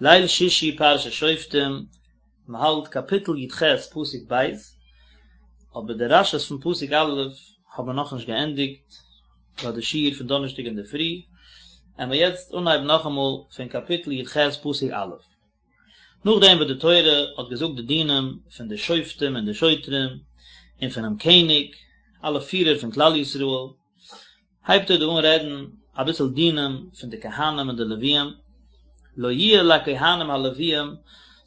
ליל שישי פרשת שופטים, מען האלט קאפיטל י ח פסוק ב', אבער די רשי'ס פון פסוק א' האבן מיר נאכנישט געענדיגט ביי די שיעור פון דאנערשטאג אינדערפרי, עמיר יעצט אנהייבן נאכאמאל פון קאפיטל י ח פסוק א'. נאכדעם וואס די תורה האט געזאגט די דינים פון די שופטים און די שוטרים און פונעם קעניג, אלע פירער פון כלל ישראל, הייבט ער דא אן רעדן אביסל דינים פון די כהנים און די לוויים, לא יהיה לכהנים הלוויים,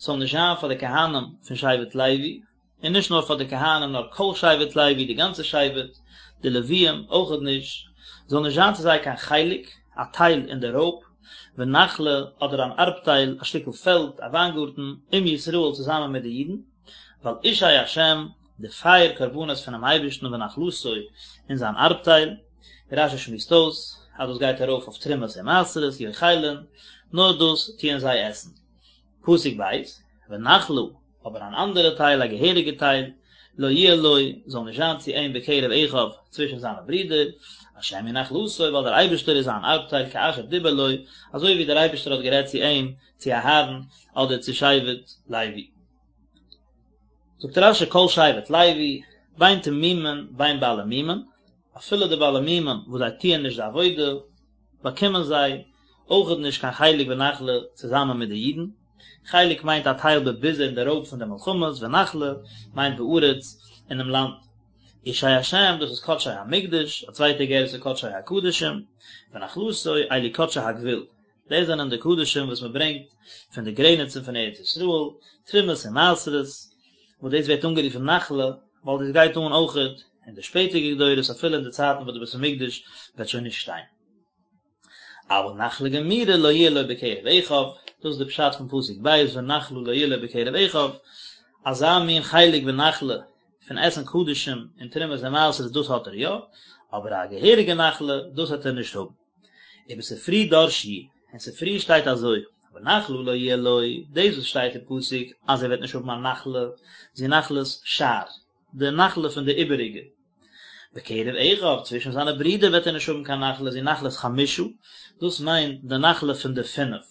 ס'זאל נישט זיין פאר די כהנים פון שבט לוי, און נישט נאר פאר די כהנים נאר כל שבט לוי, די גאנצע שבט, די לוויים אויכעט נישט, זאל נישט זיין צו זיי קיין חלק, א טייל אין די רויב, ונחלה, אדער אן ארבטייל, א שטיקל פעלד, א וויינגארטן, עם ישראל צוזאמען מיט די אידן, ווייל אשי השם, די פייער קרבנות פונעם אייבערשטן ונחלתו און זיין ארבטייל, ווי רשי שמועסט אויס אז דאס גייט ארויף אויף תרומות און מעשרות, יאכלון, נאר דאס טוען זיי עסן. פסוק ב', ונחלה, אבער אן אנדערע טייל, א געהעריגע טייל, לא יהיה לו, זאל נישט זיין צו אים בקרב אחיו, צווישן זיינע ברידער, השם הוא נחלתו, ווייל דער אייבערשטער איז זיין ארבטייל כאשר דיבר לו, אזוי ווי דער אייבערשטער האט גערעדט צו אים, צו אהרן, אדער צו שבט לוי. זאגט רשי כל שבט לוי, בין תמימים בין בעלי מומין, אפילו די בעלי מומין וואס זיי טוען נישט די עבודה, באקומען זיי אויכעט נישט קיין חלק ונחלה צוזאמען מיט די אידן, חלק מיינט א טייל בביזה אין די רויב פון די מלחמות, ונחלה מיינט בארץ אינעם לאנד. אשי השם דאס איז קדשי המקדש, א צווייטע גירסא קדשי הקדשים, ונחלתו אלו קדשי הגבול, דאס זענען די קדשים וואס מען ברענגט פון די גרעניצן פון ארץ ישראל, תרומות און מעשרות, וואס דאס ווערט אנגערופן נחלה, ווייל דאס גייט אן אויכעט אין די שפעטערדיגע דורות אפילו אין די צייטן וואס די בית המקדש וועט שוין נישט שטיין. אבל נחלה גמורה לא יהיה לו בקרב אחיו, דאס איז די פשט פון פסוק ב' ונחלה לא יהיה לו בקרב אחיו, אזא מין חלק ונחלה פון עסן קדשים און תרומות און מעשרות דאס האט ער יא, אבער א געהעריגע נחלה דאס וועט ער נישט האבן. ובספרי דרשו, אין ספרי שטייט אזוי, ונחלה לא יהיה לו, דאס וואס שטייט אין פסוק אז ער וועט נישט האבן א נחלה, זו נחלת שאר, די נחלה פון די איבעריגע. בקרב אחיו, צווישן זיינע ברידער וועט ער נישט האבן קיין נחלה, זו נחלת חמשה, דאס מיינט די נחלה פון די פינף.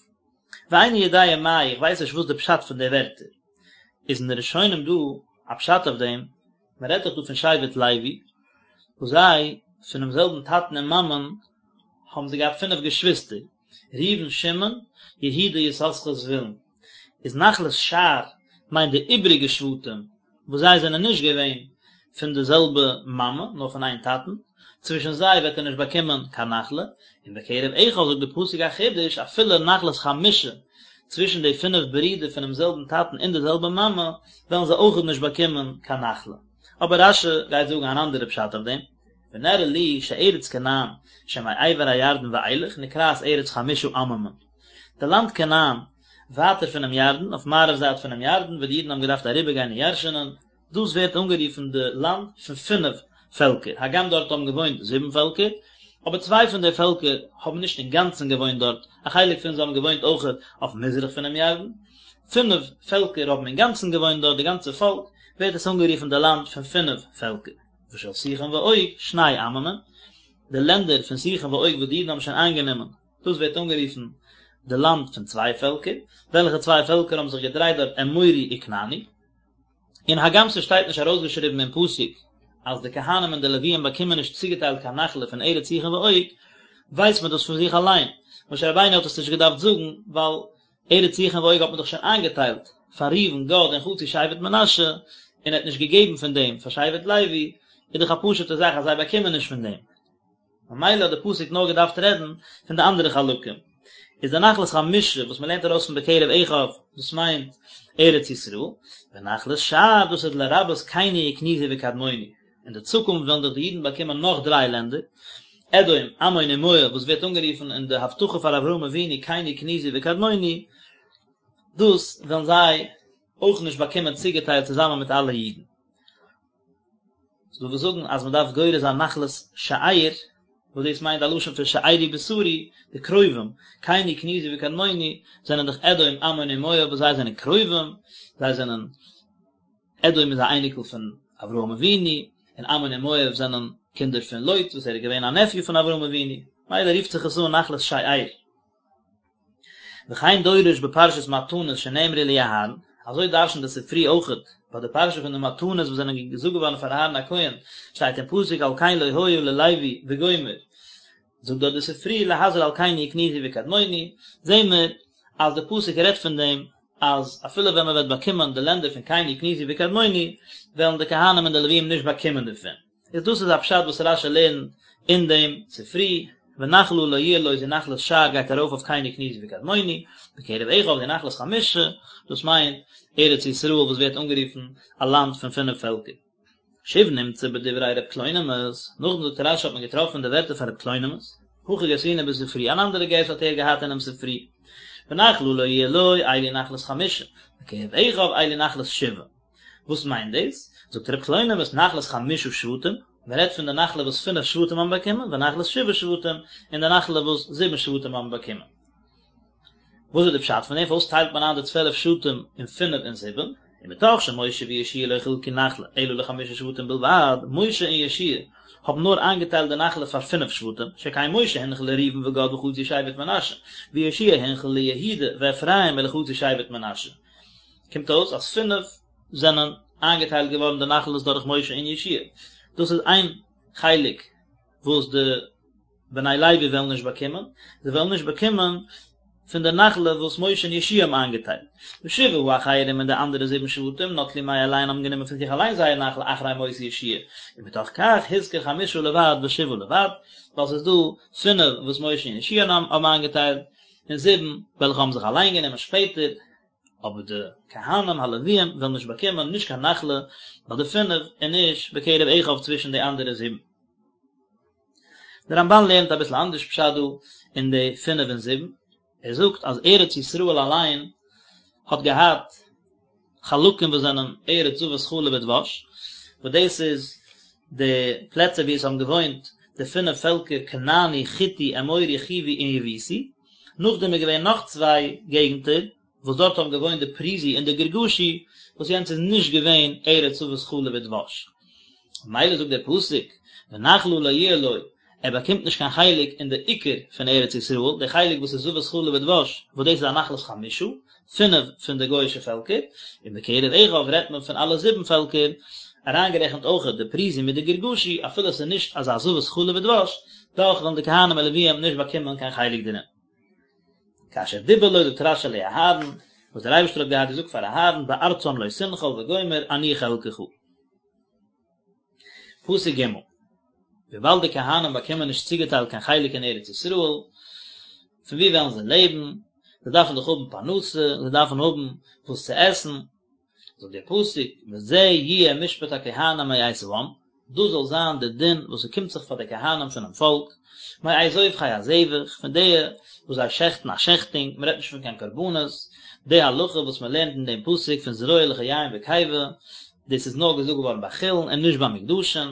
ואיני יודע מאי, איך ווייס נישט וואס די פשט פון די ווערטער. איז אין די ראשונים דא א פשט אויף דעם, מען רעדט דאך דא פון שבט לוי, וואס זיי, פונעם זעלבן טאטן און מאמען, האבן זיי געהאט פינף געשוויסטער, ראובן, שמעון, יהודה, יששכר, זבולון. איז נחלת שאר מיינט די איבריגע שבטים, וואס זיי זענען נישט געווען פון די זעלבע מאמע, נאר פון איין טאטן, צווישן זיי וועט ער נישט באקומען קיין נחלה, און בקרב אחיו זאגט די פסוק א חידוש, אפילו נחלת חמשה, צווישן די פינף ברידער פונעם זעלבן טאטן און די זעלבע מאמע, וועלן זיי אויכעט נישט באקומען קיין נחלה. אבער רש"י גייט זאגן אן אנדערע פשט אויף דעם, ונראה לי שארץ כנען שמעבר הירדן ואילך נקראת ארץ חמשה עממים. די לאנד כנען, ווייטער פונעם ירדן, אויף מערב זייט פונעם ירדן, וואו די אידן האבן געדארפט אריבערגיין און ירש'ענען, דאס ווערט אנגערופן די לאנד פון פינף פעלקער, הגם דארט האבן געוואוינט זיבן פעלקער, אבער צוויי פון די פעלקער האבן נישט אינגאנצן געוואוינט דארט, א חלק פון זיי האבן געוואוינט אויכעט אויף מזרח פונעם ירדן, פינף פעלקער האבן אינגאנצן געוואוינט דארט, די גאנצע פאלק, ווערט עס אנגערופן די לאנד פון פינף פעלקער. ושל סיחון ועוג, שני עממים, די לענדער פון סיחון ועוג וואס די אידן האבן שוין איינגענומען, דאס ווערט אנגערופן די לאנד פון צוויי פעלקער, וועלכע צוויי פעלקער האבן זיך געדרייט דארט אמורי וכנעני. און הגם ס'שטייט נישט ארויסגעשריבן אין פסוק אז די כהנים און די לוויים באקומען נישט צוגעטיילט קיין נחלה פון ארץ סיחון ועוג, ווייסט מען דאס פון זיך אליין, משה רבינו האט עס נישט געדארפט זאגן, ווייל ארץ סיחון ועוג האט מען דאך שוין איינגעטיילט פאר ראובן, גד און חצי שבט מנשה, און ער האט נישט געגעבן פון דעם פאר שבט לוי, איז דאך א פשוט'ע זאך אז זיי באקומען נישט פון דעם. ממילא האט די פסוק נאר געדארפט רעדן פון די אנדערע חלקים. איז די נחלת חמשה וואס מען לערנט ארויס פון בקרב אחיו, דאס מיינט ארץ ישראל, ונחלת שאר דאס איז לרבות קיני וקניזי וקדמוני. אין די צוקונפט וועלן דאך די אידן באקומען נאך דריי לענדער, אדום, עמון און מואב, וואס ווערט אנגערופן אין די הבטחה פאר אברהם אבינו קיני קניזי וקדמוני, דאס וועלן זיי אויך נישט באקומען צוגעטיילט צוזאמען מיט אלע אידן. ס'דא וואס זאגן אז מ'דארף גורס זיין נחלת שאר, וואס דאס מיינט א לשון פון שארי בשרי, די קרובים, קיני קניזי וקדמוני, זענען דאך אדום, עמון און מואב וואס זיי זענען קרובים, זיי זענען, אדום איז א אייניקל פון אברהם אבינו, און עמון און מואב זענען קינדער פון לוט וואס ער איז געווען א נעפיו פון אברהם אבינו, מילא רופט זיך עס אן נחלת שאר. וכן דורש בפרשת מתנות שנאמרו לאהרן, אזוי דרש'נט די ספרי אויכעט ביי די פרשה פון די מתנות וואס זענען געזאגט געווארן פאר אהרן הכהן, שטייט אין פסוק על כן לא היה ללוי וגומר, זאגט דארט די ספרי להזהיר על קיני וקניזי וקדמוני, זעהן מיר אז די פסוק רעדט פון דעם אז אפילו ווען מען וועט באקומען די לענדער פון קיני קניזי וקדמוני וועלן די כהנים און די לוויים נישט באקומען דערפון. איז דאס איז א פשט וואס רש"י לערנט אין דעם ספרי, ונחלה לא יהיה לו זו נחלת שאר גייט ארויף אויף קיני קניזי וקדמוני, בקרב אחיו זו נחלת חמשה, דאס מיינט ארץ ישראל וואס ווערט אנגערופן א לאנד פון פינף פעלקער. שוב נמצא בדברי ר' קלונימוס, נאכדעם זאגט רש"י האט מען געטראפן די ווערטער פון ר' קלונימוס, הכי גרסינן בספרי, אן אנדערע גירסא האט ער געהאט אינעם ספרי, ונחלה לא יהיה לו, אלו נחלת חמשה, בקרב אחיו אלו נחלת שבעה. וואס מיינט דאס? זאגט ר' קלונימוס נחלת חמשה שבטים, מען רעדט פון די נחלה וואס פינף שבטים האבן באקומען, ונחלת שבעה שבטים, און די נחלה וואס זיבן שבטים האבן באקומען. וואס איז די פשט פון דעם? פארוואס טיילט מען איין די צוועלף שבטים אין פינף און זיבן? ומתוך שמשה ויהושע לא חילקו נחלה אלא לחמשה שבטים בלבד, משה און יהושע האבן נאר איינגעטיילט די נחלה פאר פינף שבטים, שכן משה הנחיל לראובן וגד וחצי שבט מנשה, ויהושע הנחיל ליהודה ואפרים ולחצי שבט מנשה. קומט אויס אז פינף זענען איינגעטיילט געווארן די נחלות דורך משה און יהושע, דאס איז איין חלק וואס די בני לוי וועלן נישט באקומען, זיי וועלן נישט באקומען פון די נחלה וואס משה און יהושע האבן איינגעטיילט. ושבעה האחרים און די אנדערע זיבן שבטים נטלו מאליהן האבן גענומען פון זיך אליין זייער נחלה אחרי מות יהושע, ומתוך כך הזכיר חמשה לבד ושבעה לבד, ווייל ס'איז דא פינף וואס משה און יהושע האבן איינגעטיילט, און זיבן וועלכע האבן זיך אליין גענומען שפעטער, אבער די כהנים הלוויים וועלן נישט באקומען נישט קיין נחלה ביי די פינף און נישט בקרב אחיו צווישן די אנדערע זיבן. דער רמב"ן לערנט אביסל אנדערש פשט דא אין די פינף און זיבן, ער זאגט אז ארץ ישראל אליין האט געהאט חלקים וואס זענען ארץ זבת חלב ודבש, וואס דאס איז די פלעצער וואו עס האבן געוואוינט די פינף פעלקער כנעני, חיטי, אמורי, חיווי און יבוסי, נאכדעם איז געווען נאך צוויי געגנטער וואס דארט האבן געוואוינט די פריזי און די גרגשי, וואס יענץ איז נישט געווען ארץ זבת חלב ודבש. ממילא זאגט דער פסוק, ונחלה לא יהיה לו, ער באקומט נישט קיין חלק אין די עיקר פון ארץ ישראל, די חלק וואס איז זבת חלב ודבש, וואס דאס איז א נחלת חמשה, פינף פון די גוי'אישע פעלקער, און בקרב אחיו רעדט מען פון אלע זיבן פעלקער, אריינגערעכנט אויכעט די פריזי מיט די גרגשי, אפילו עס איז נישט אזא זבת חלב ודבש, דאך וועלן די כהנים און לוויים נישט באקומען קיין חלק דערין. כאשר דיבר לו זאגט רש"י לאהרן, וואס דער אייבערשטער האט געהאט געזאגט פאר אהרן בארצם לא תנחל וגומר אני חלקך. פסוק ג', וויבאלד די כהנים באקומען נישט צוגעטיילט קיין חלק אין ארץ ישראל, פון וואו וועלן זיי לעבן? זיי דארפן דאך האבן פרנסה, זיי דארפן האבן וואס צו עסן, זאגט דער פסוק, וזה יהיה משפט הכהנים מאת העם, דאס זאל זיין דער דין וואס ס'קומט זיך פאר די כהנים פונעם פאלק, מאת זובחי הזבח, פון די וואס זיי שעכטן א שעכטונג, מען רעדט נישט פון קיין קרבנות, די הלכה וואס מען לערנט אין דעם פסוק פון זרוע לחיים וקיבה, דאס איז נאר געזאגט געווארן ביי חולין און נישט ביי מוקדשין.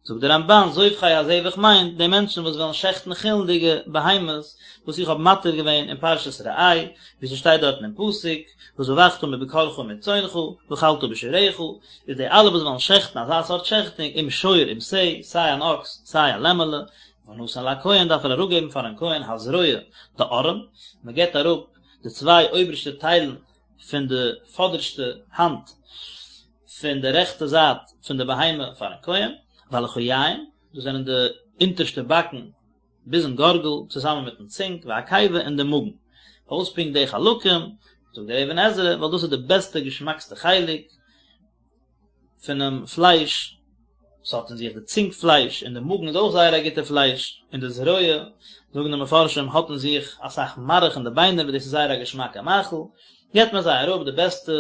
זאגט דער רמב"ן, זובחי הזבח מיינט די מענטשן וואס וועלן שעכטן חולין'דיגע בהמות, וואס איך האב מתיר געווען אין פרשת ראה, ווי ס'שטייט דארטן אין פסוק, וזבחת מבקרך ומצאנך, ואכלת בשעריך, איז די אלע וואס וועלן שעכטן אזא סארט שעכטונג, אם שור אם שה, סיי אן אקס, סיי א לעמעלע, ונתן לכהן דארף ער אראפגעבן פארן כהן הזרוע, די ארעם, מען געבט אראפ די צוויי אויבערשטע טיילן פון די פאדערשטע האנט פון די רעכטע זייט פון די בהמה פארן כהן, והלחיים, דאס זענען די אונטערשטע באקן ביזן גארגל צוזאמען מיטן צונג, והקיבה און די מאגן. פארוואס פונקט די חלקים? זאגט דער אבן עזרא, ווייל דאס איז די בעסטע געשמאקסטע חלק פונעם פלייש, ס'האט אין זיך די צונג פלייש, און די מאגן איז אויך זייער א גוטע פלייש, און די זרוע, זאגן די מפרשים, האט אין זיך אסאך מארך אין די ביינער וואס דאס איז זייער א געשמאקע מאכל, געבט מען זיי אראפ די בעסטע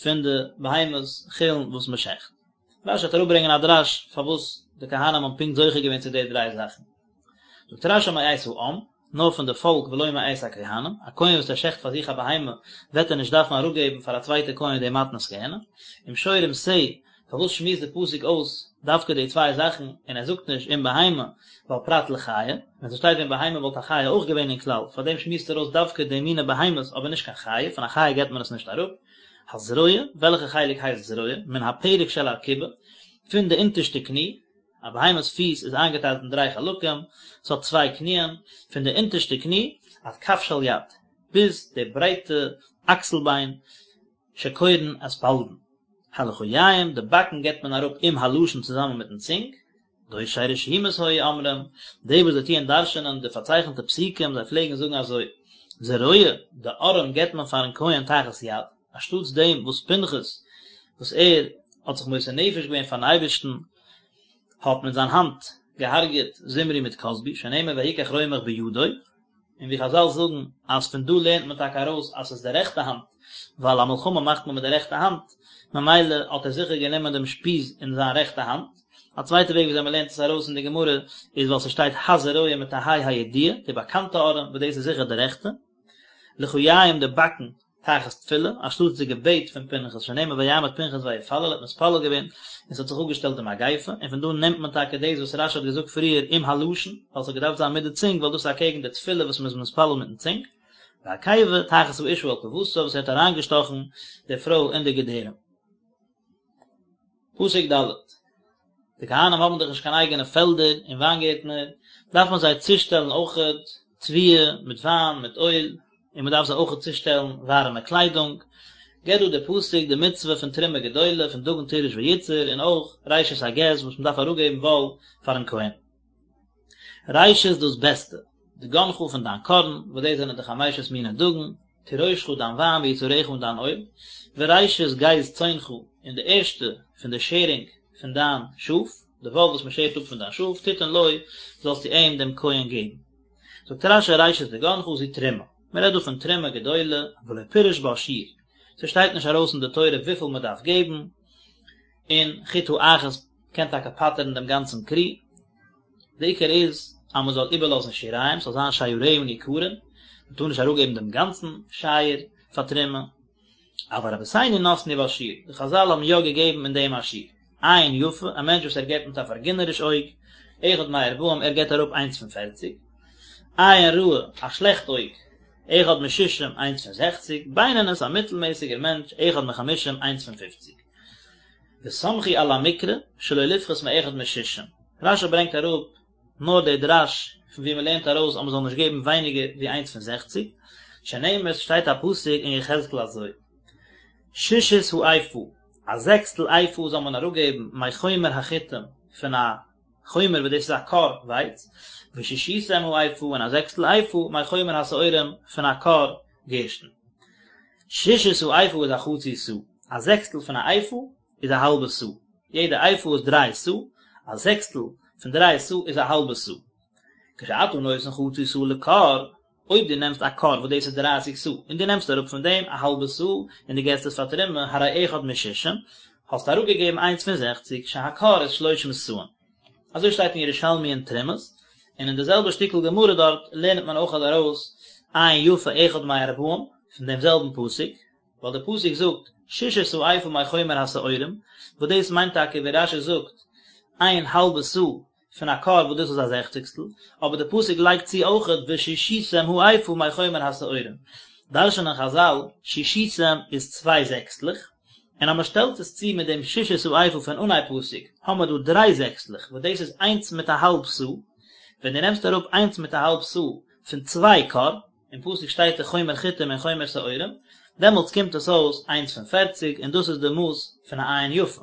פון די בהמות חולין וואס מען שעכט. רש"י וועט אראפברענגען א דרש פארוואס די כהנים האבן פונקט זוכה געווען צו די דריי זאכן. זאגט רש"י מאת העם, נאר פון די פאלק ולא מאת הכהנים, א כהן וואס ער שעכט פאר זיך א בהמה וועט ער נישט דארפן אראפגעבן פאר א צווייטע כהן די מתנות כהונה, אם שור אם שה, פארוואס שמועסט די פסוק אויס דווקא די צוויי זאכן און ער זאגט נישט אם בהמה ווייל פרט לחיה, ווען ס'שטייט ווען בהמה וואלט א חיה אויך געווען אין כלל, פארדעם שמועסט ער אויס דווקא די מיני בהמות אבער נישט קיין חיה, פון א חיה געבט מען עס נישט אראפ. הזרוע, וועלכע חלק הייסט זרוע? מן הפרק של ארכובה, פון די אונטערשטע קני, א בהמה'ס פיס איז איינגעטיילט אין דריי חלקים, ס'האט צוויי קניען, פון די אונטערשטע קני עד כף של יד. ביז די ברייטע אקסל ביין, שקורין אספלדון. הלחיים, די באקן געבט מען אראפ עם הלשון צוזאמען מיטן צונג, דורשי רשומות היו אומרים, די וואס זיי טוען דרש'ענען די פארצייכנטע פסוקים, זיי פלעגן זאגן אזוי, זרוע, די ארעם געבט מען פארן כהן תחת יד, אנשטאטס דעם וואס פנחס, וואס ער האט זיך מוסר נפש געווען פארן אייבערשטן, האט מיט זיין האנט געהארגעט זמרי מיט כזבי, שנאמר ויקח רומח בידו, און ווי חזל זאגן אז פון דא לערנט מען טאקע ארויס אז ס'איז די רעכטע האנט, ווייל א מלחמה מאכט מען מיט די רעכטע האנט, ממילא האט ער זיכער גענומען דעם שפיז אין זיין רעכטע האנט. א צווייטע וועג וויאזוי מ'לערנט עס ארויס אין די גמרא איז ווייל ס'שטייט הזרוע מיט א ה' הידיעה, די באקאנטע ארעם, וואס דאס איז זיכער די רעכטע. לחיים די באקן תחת תפילה, אנשטאטס די געבעט פון פנחס, שנאמר ויעמד פנחס ויפלל, ער האט מתפלל געווען, און ס'האט זיך אפגעשטעלט די מגיפה, און פון דא נעמט מען טאקע דאס וואס רשי האט געזאגט פריער עם הלשון, ווייל ס'האט געדארפט זיין מיט די צונג, ווייל דאס איז אקעגן די תפילה וואס מ'איז מתפלל מיטן צונג, והקיבה תחת האשה אל קיבתה, וואס ער האט אריינגעשטאכן די פרוי אין די געדערים. פסוק ד'. די כהנים האבן דאך נישט קיין אייגענע פעלדער און וויינגערטנער, דארף מען זיי צושטעלן אויכעט תבואה מיט וויין מיט אויל, און מען דארף זיי אויכעט צושטעלן ווארעמע קליידונג. געבט דא דער פסוק די מצוה פון תרומה גדולה פון דגן תירוש ויצהר און אויך ראשית הגז וואס מען דארף אראפגעבן וואל פארן כהן. ראשית דאס בעסטע, דגנך פון דיין קארן, וואס דאס זענען די חמשת מיני דגן, תירושך דיין וויין ויצהרך און דיין אויל, וראשית גז צאנך און די ערשטע פון די שערינג פון דיין שאף, די וואל וואס מען שערט אפ פון דיין שאף, תתן לו, זאלסטו אים דעם כהן געבן. זאגט רשי ראשית דגנך זו תרומה, מען רעדט דא פון תרומה גדולה, ולא פירש בה שיעור, ס'שטייט נישט ארויס אין די תורה וויפיל מען דארף געבן, און חיטה אחת קען טאקע פטר'ן דעם גאנצן כרי, די עיקר איז אז מען זאל איבערלאזן שיריים, ס'זאל זיין שיריה ניכרין, מען טאר נישט אראפגעבן דעם גאנצן שייר פאר תרומה, אבל רבותינו נתנו בה שיעור, די חזל האבן יא געגעבן אין דעם א שיעור, עין יפה, א מענטש וואס ער געבט מיט א פארגינעריש אויג, אחד מארבעים, ער געבט אראפ איינס פון פערציג, עין רעה, א שלעכט אויג, אחד משישים, איינס פון זעכציג, בינונית, א מיטלמעסיגער מענטש, אחד מחמישים, איינס פון פופציג. וסמכו על המקרא שלא לפחות מאחד משישים, רשי ברענגט אראפ נאר די דרש פון ווי מ'לערנט ארויס אז מ'זאל נישט געבן ווייניגער ווי איינס פון זעכציג, שנאמר ס'שטייט א פסוק אין יחזקאל אזוי, שישית האיפה, א זעקסטל איפה זאל מען אראפגעבן מחומר החיטים פון א חומר וואס דאס איז א כור ווייץ, ושישיתם האיפה און א זעקסטל איפה מחומר השעורים פון א כור גערשטן. שישית האיפה איז א חצי סאה, א זעקסטל פון א איפה איז א האלבע סאה, יעדע איפה איז דריי סאה, א זעקסטל פון דריי סאה איז א האלבע סאה. כשאתה נותן חצי סאה לכור, אויב דו נעמסט א כור וואס דאס איז דרייסיג סאה, און דו נעמסט אראפ פון דעם א האלבע סאה און דו געסט עס פאר תרומה, הרי אחד משישים, האסטו אראפגעגעבן איינס פון זעכציג, שהכור איז שלושים סאין. אזוי שטייט אין ירושלמי אין תרומות, און אין די זעלבע שטיקל גמרא דארט לערנט מען אויך ארויס עין יפה אחד מארבעים פון דעם זעלבן פסוק, ווייל דער פסוק זאגט שישית האיפה מחומר השעורים, וואס דאס מיינט טאקע ווי רשי זאגט איין האלבע סאה פון א כור וואס דאס איז א זעכציגסטל, אבער דער פסוק לייגט צו אויכעט ושישיתם האיפה מחומר השעורים, דרש'נען חזל שישיתם איז צוויי זעקסטלעך, און אז מען שטעלט עס צו מיט דעם שישית האיפה פון אנהייב פסוק, האמער דא דריי זעקסטלעך, וואס דאס איז איינס מיט א האלב סאה, ווען דו נעמסט אראפ איינס מיט א האלב סאה פון צוויי כור, אין פסוק שטייט דאך חומר חיטים און חומר שעורים, דעמאלטס קומט עס אויס איינס פון פערציג, און דאס איז די מאס פון א עין יפה.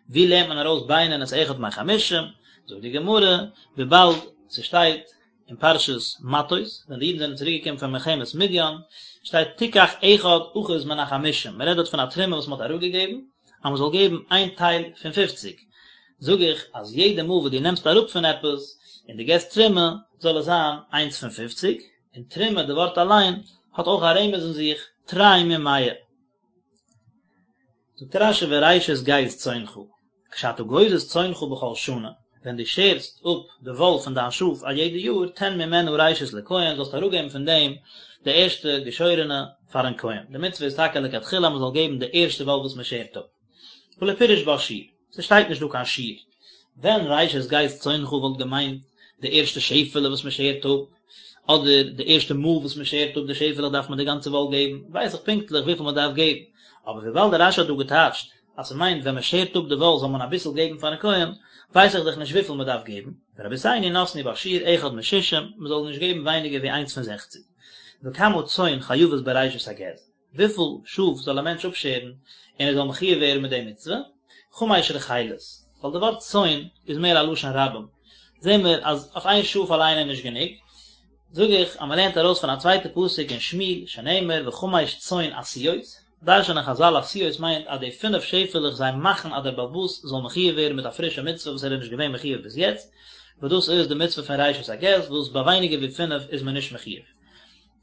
ווי לערנט מען ארויס בינונית אחד מחמישים? זאגט די גמרא, וויבאלד ס'שטייט אין פרשת מטות, ווען די אידן זענען צוריק געקומען פון מלחמת מדיין, שטייט תיקח אחד אחוז מן החמישים, מען רעדט דארט פון א תרומה וואס מען האט אראפגעגעבן, אז מען זאל געבן איין טייל פון פופציג, זאג איך אז יעדע מאל וואס דו נעמסט אראפ פון עפעס און דו געסט תרומה, זאל עס זיין איינס פון פופציג, און תרומה די ווארט אליין האט אויך א רמז אין זיך, תרי ממאה. זאגט רשי וראשית גז צאנך, כשאתה גוזז צאנך בכל שנה, ווען דו שערסט אפ די וואל פון דיין שאף א יעדע יאר, תן ממנה ראשית לכהן, זאלסטו אראפגעבן פון דעם די ערשטע געשוירענע פארן כהן. די מצוה איז טאקע לכתחילה אז מען זאל געבן די ערשטע וואל וואס מען שערט אפ. ולא פירש בה שיעור, ס'שטייט נישט דא קיין שיעור. ווען ראשית גז צאנך וואלט געמיינט די ערשטע שעפעלע וואס מען שערט אפ, אדער די ערשטע מאל וואס מען שערט אפ די שעפעלעך דארף מען די גאנצע וואל געבן, ווייס איך פונקטליך וויפיל מען דארף געבן. אבער וויבאלד דער רשי האט דא געטייטשט אז ס'מיינט ווען מ'שערט אפ די וואל זאל מען אביסל געבן פארן כהן, ווייס איך דאך נישט וויפיל מ'דארף געבן, ורבותינו נתנו בה שיעור אחד משישים, מ'זאל נישט געבן ווייניגער ווי איינס פון זעכציג. וכמה צאן חייבות בראשית הגז, וויפיל שאף זאל א מענטש אפשערן און ער זאל מחויב ווערן מיט די מצוה, חמש רחלות, ווייל די ווארט צאן איז מער א לשון רבים, זעהן מיר אז אויף איין שאף אליין איז נישט גענוג, זאג איך אז מען לערנט ארויס פון א צווייטע פסוק אין שמואל שנאמר וחמש צאן עשויות, דרש'נען חזל עשויות מיינט אז די פינף שעפעלעך זיי מאכן אז דער בעל הבית זאל מחויב ווערן מיט א פרישע מצוה וואס ער איז נישט געווען מחויב ביז יעצט, וואס דאס איז די מצוה פון ראשית הגז וואס ביי ווייניגער ווי פינף איז מען נישט מחויב.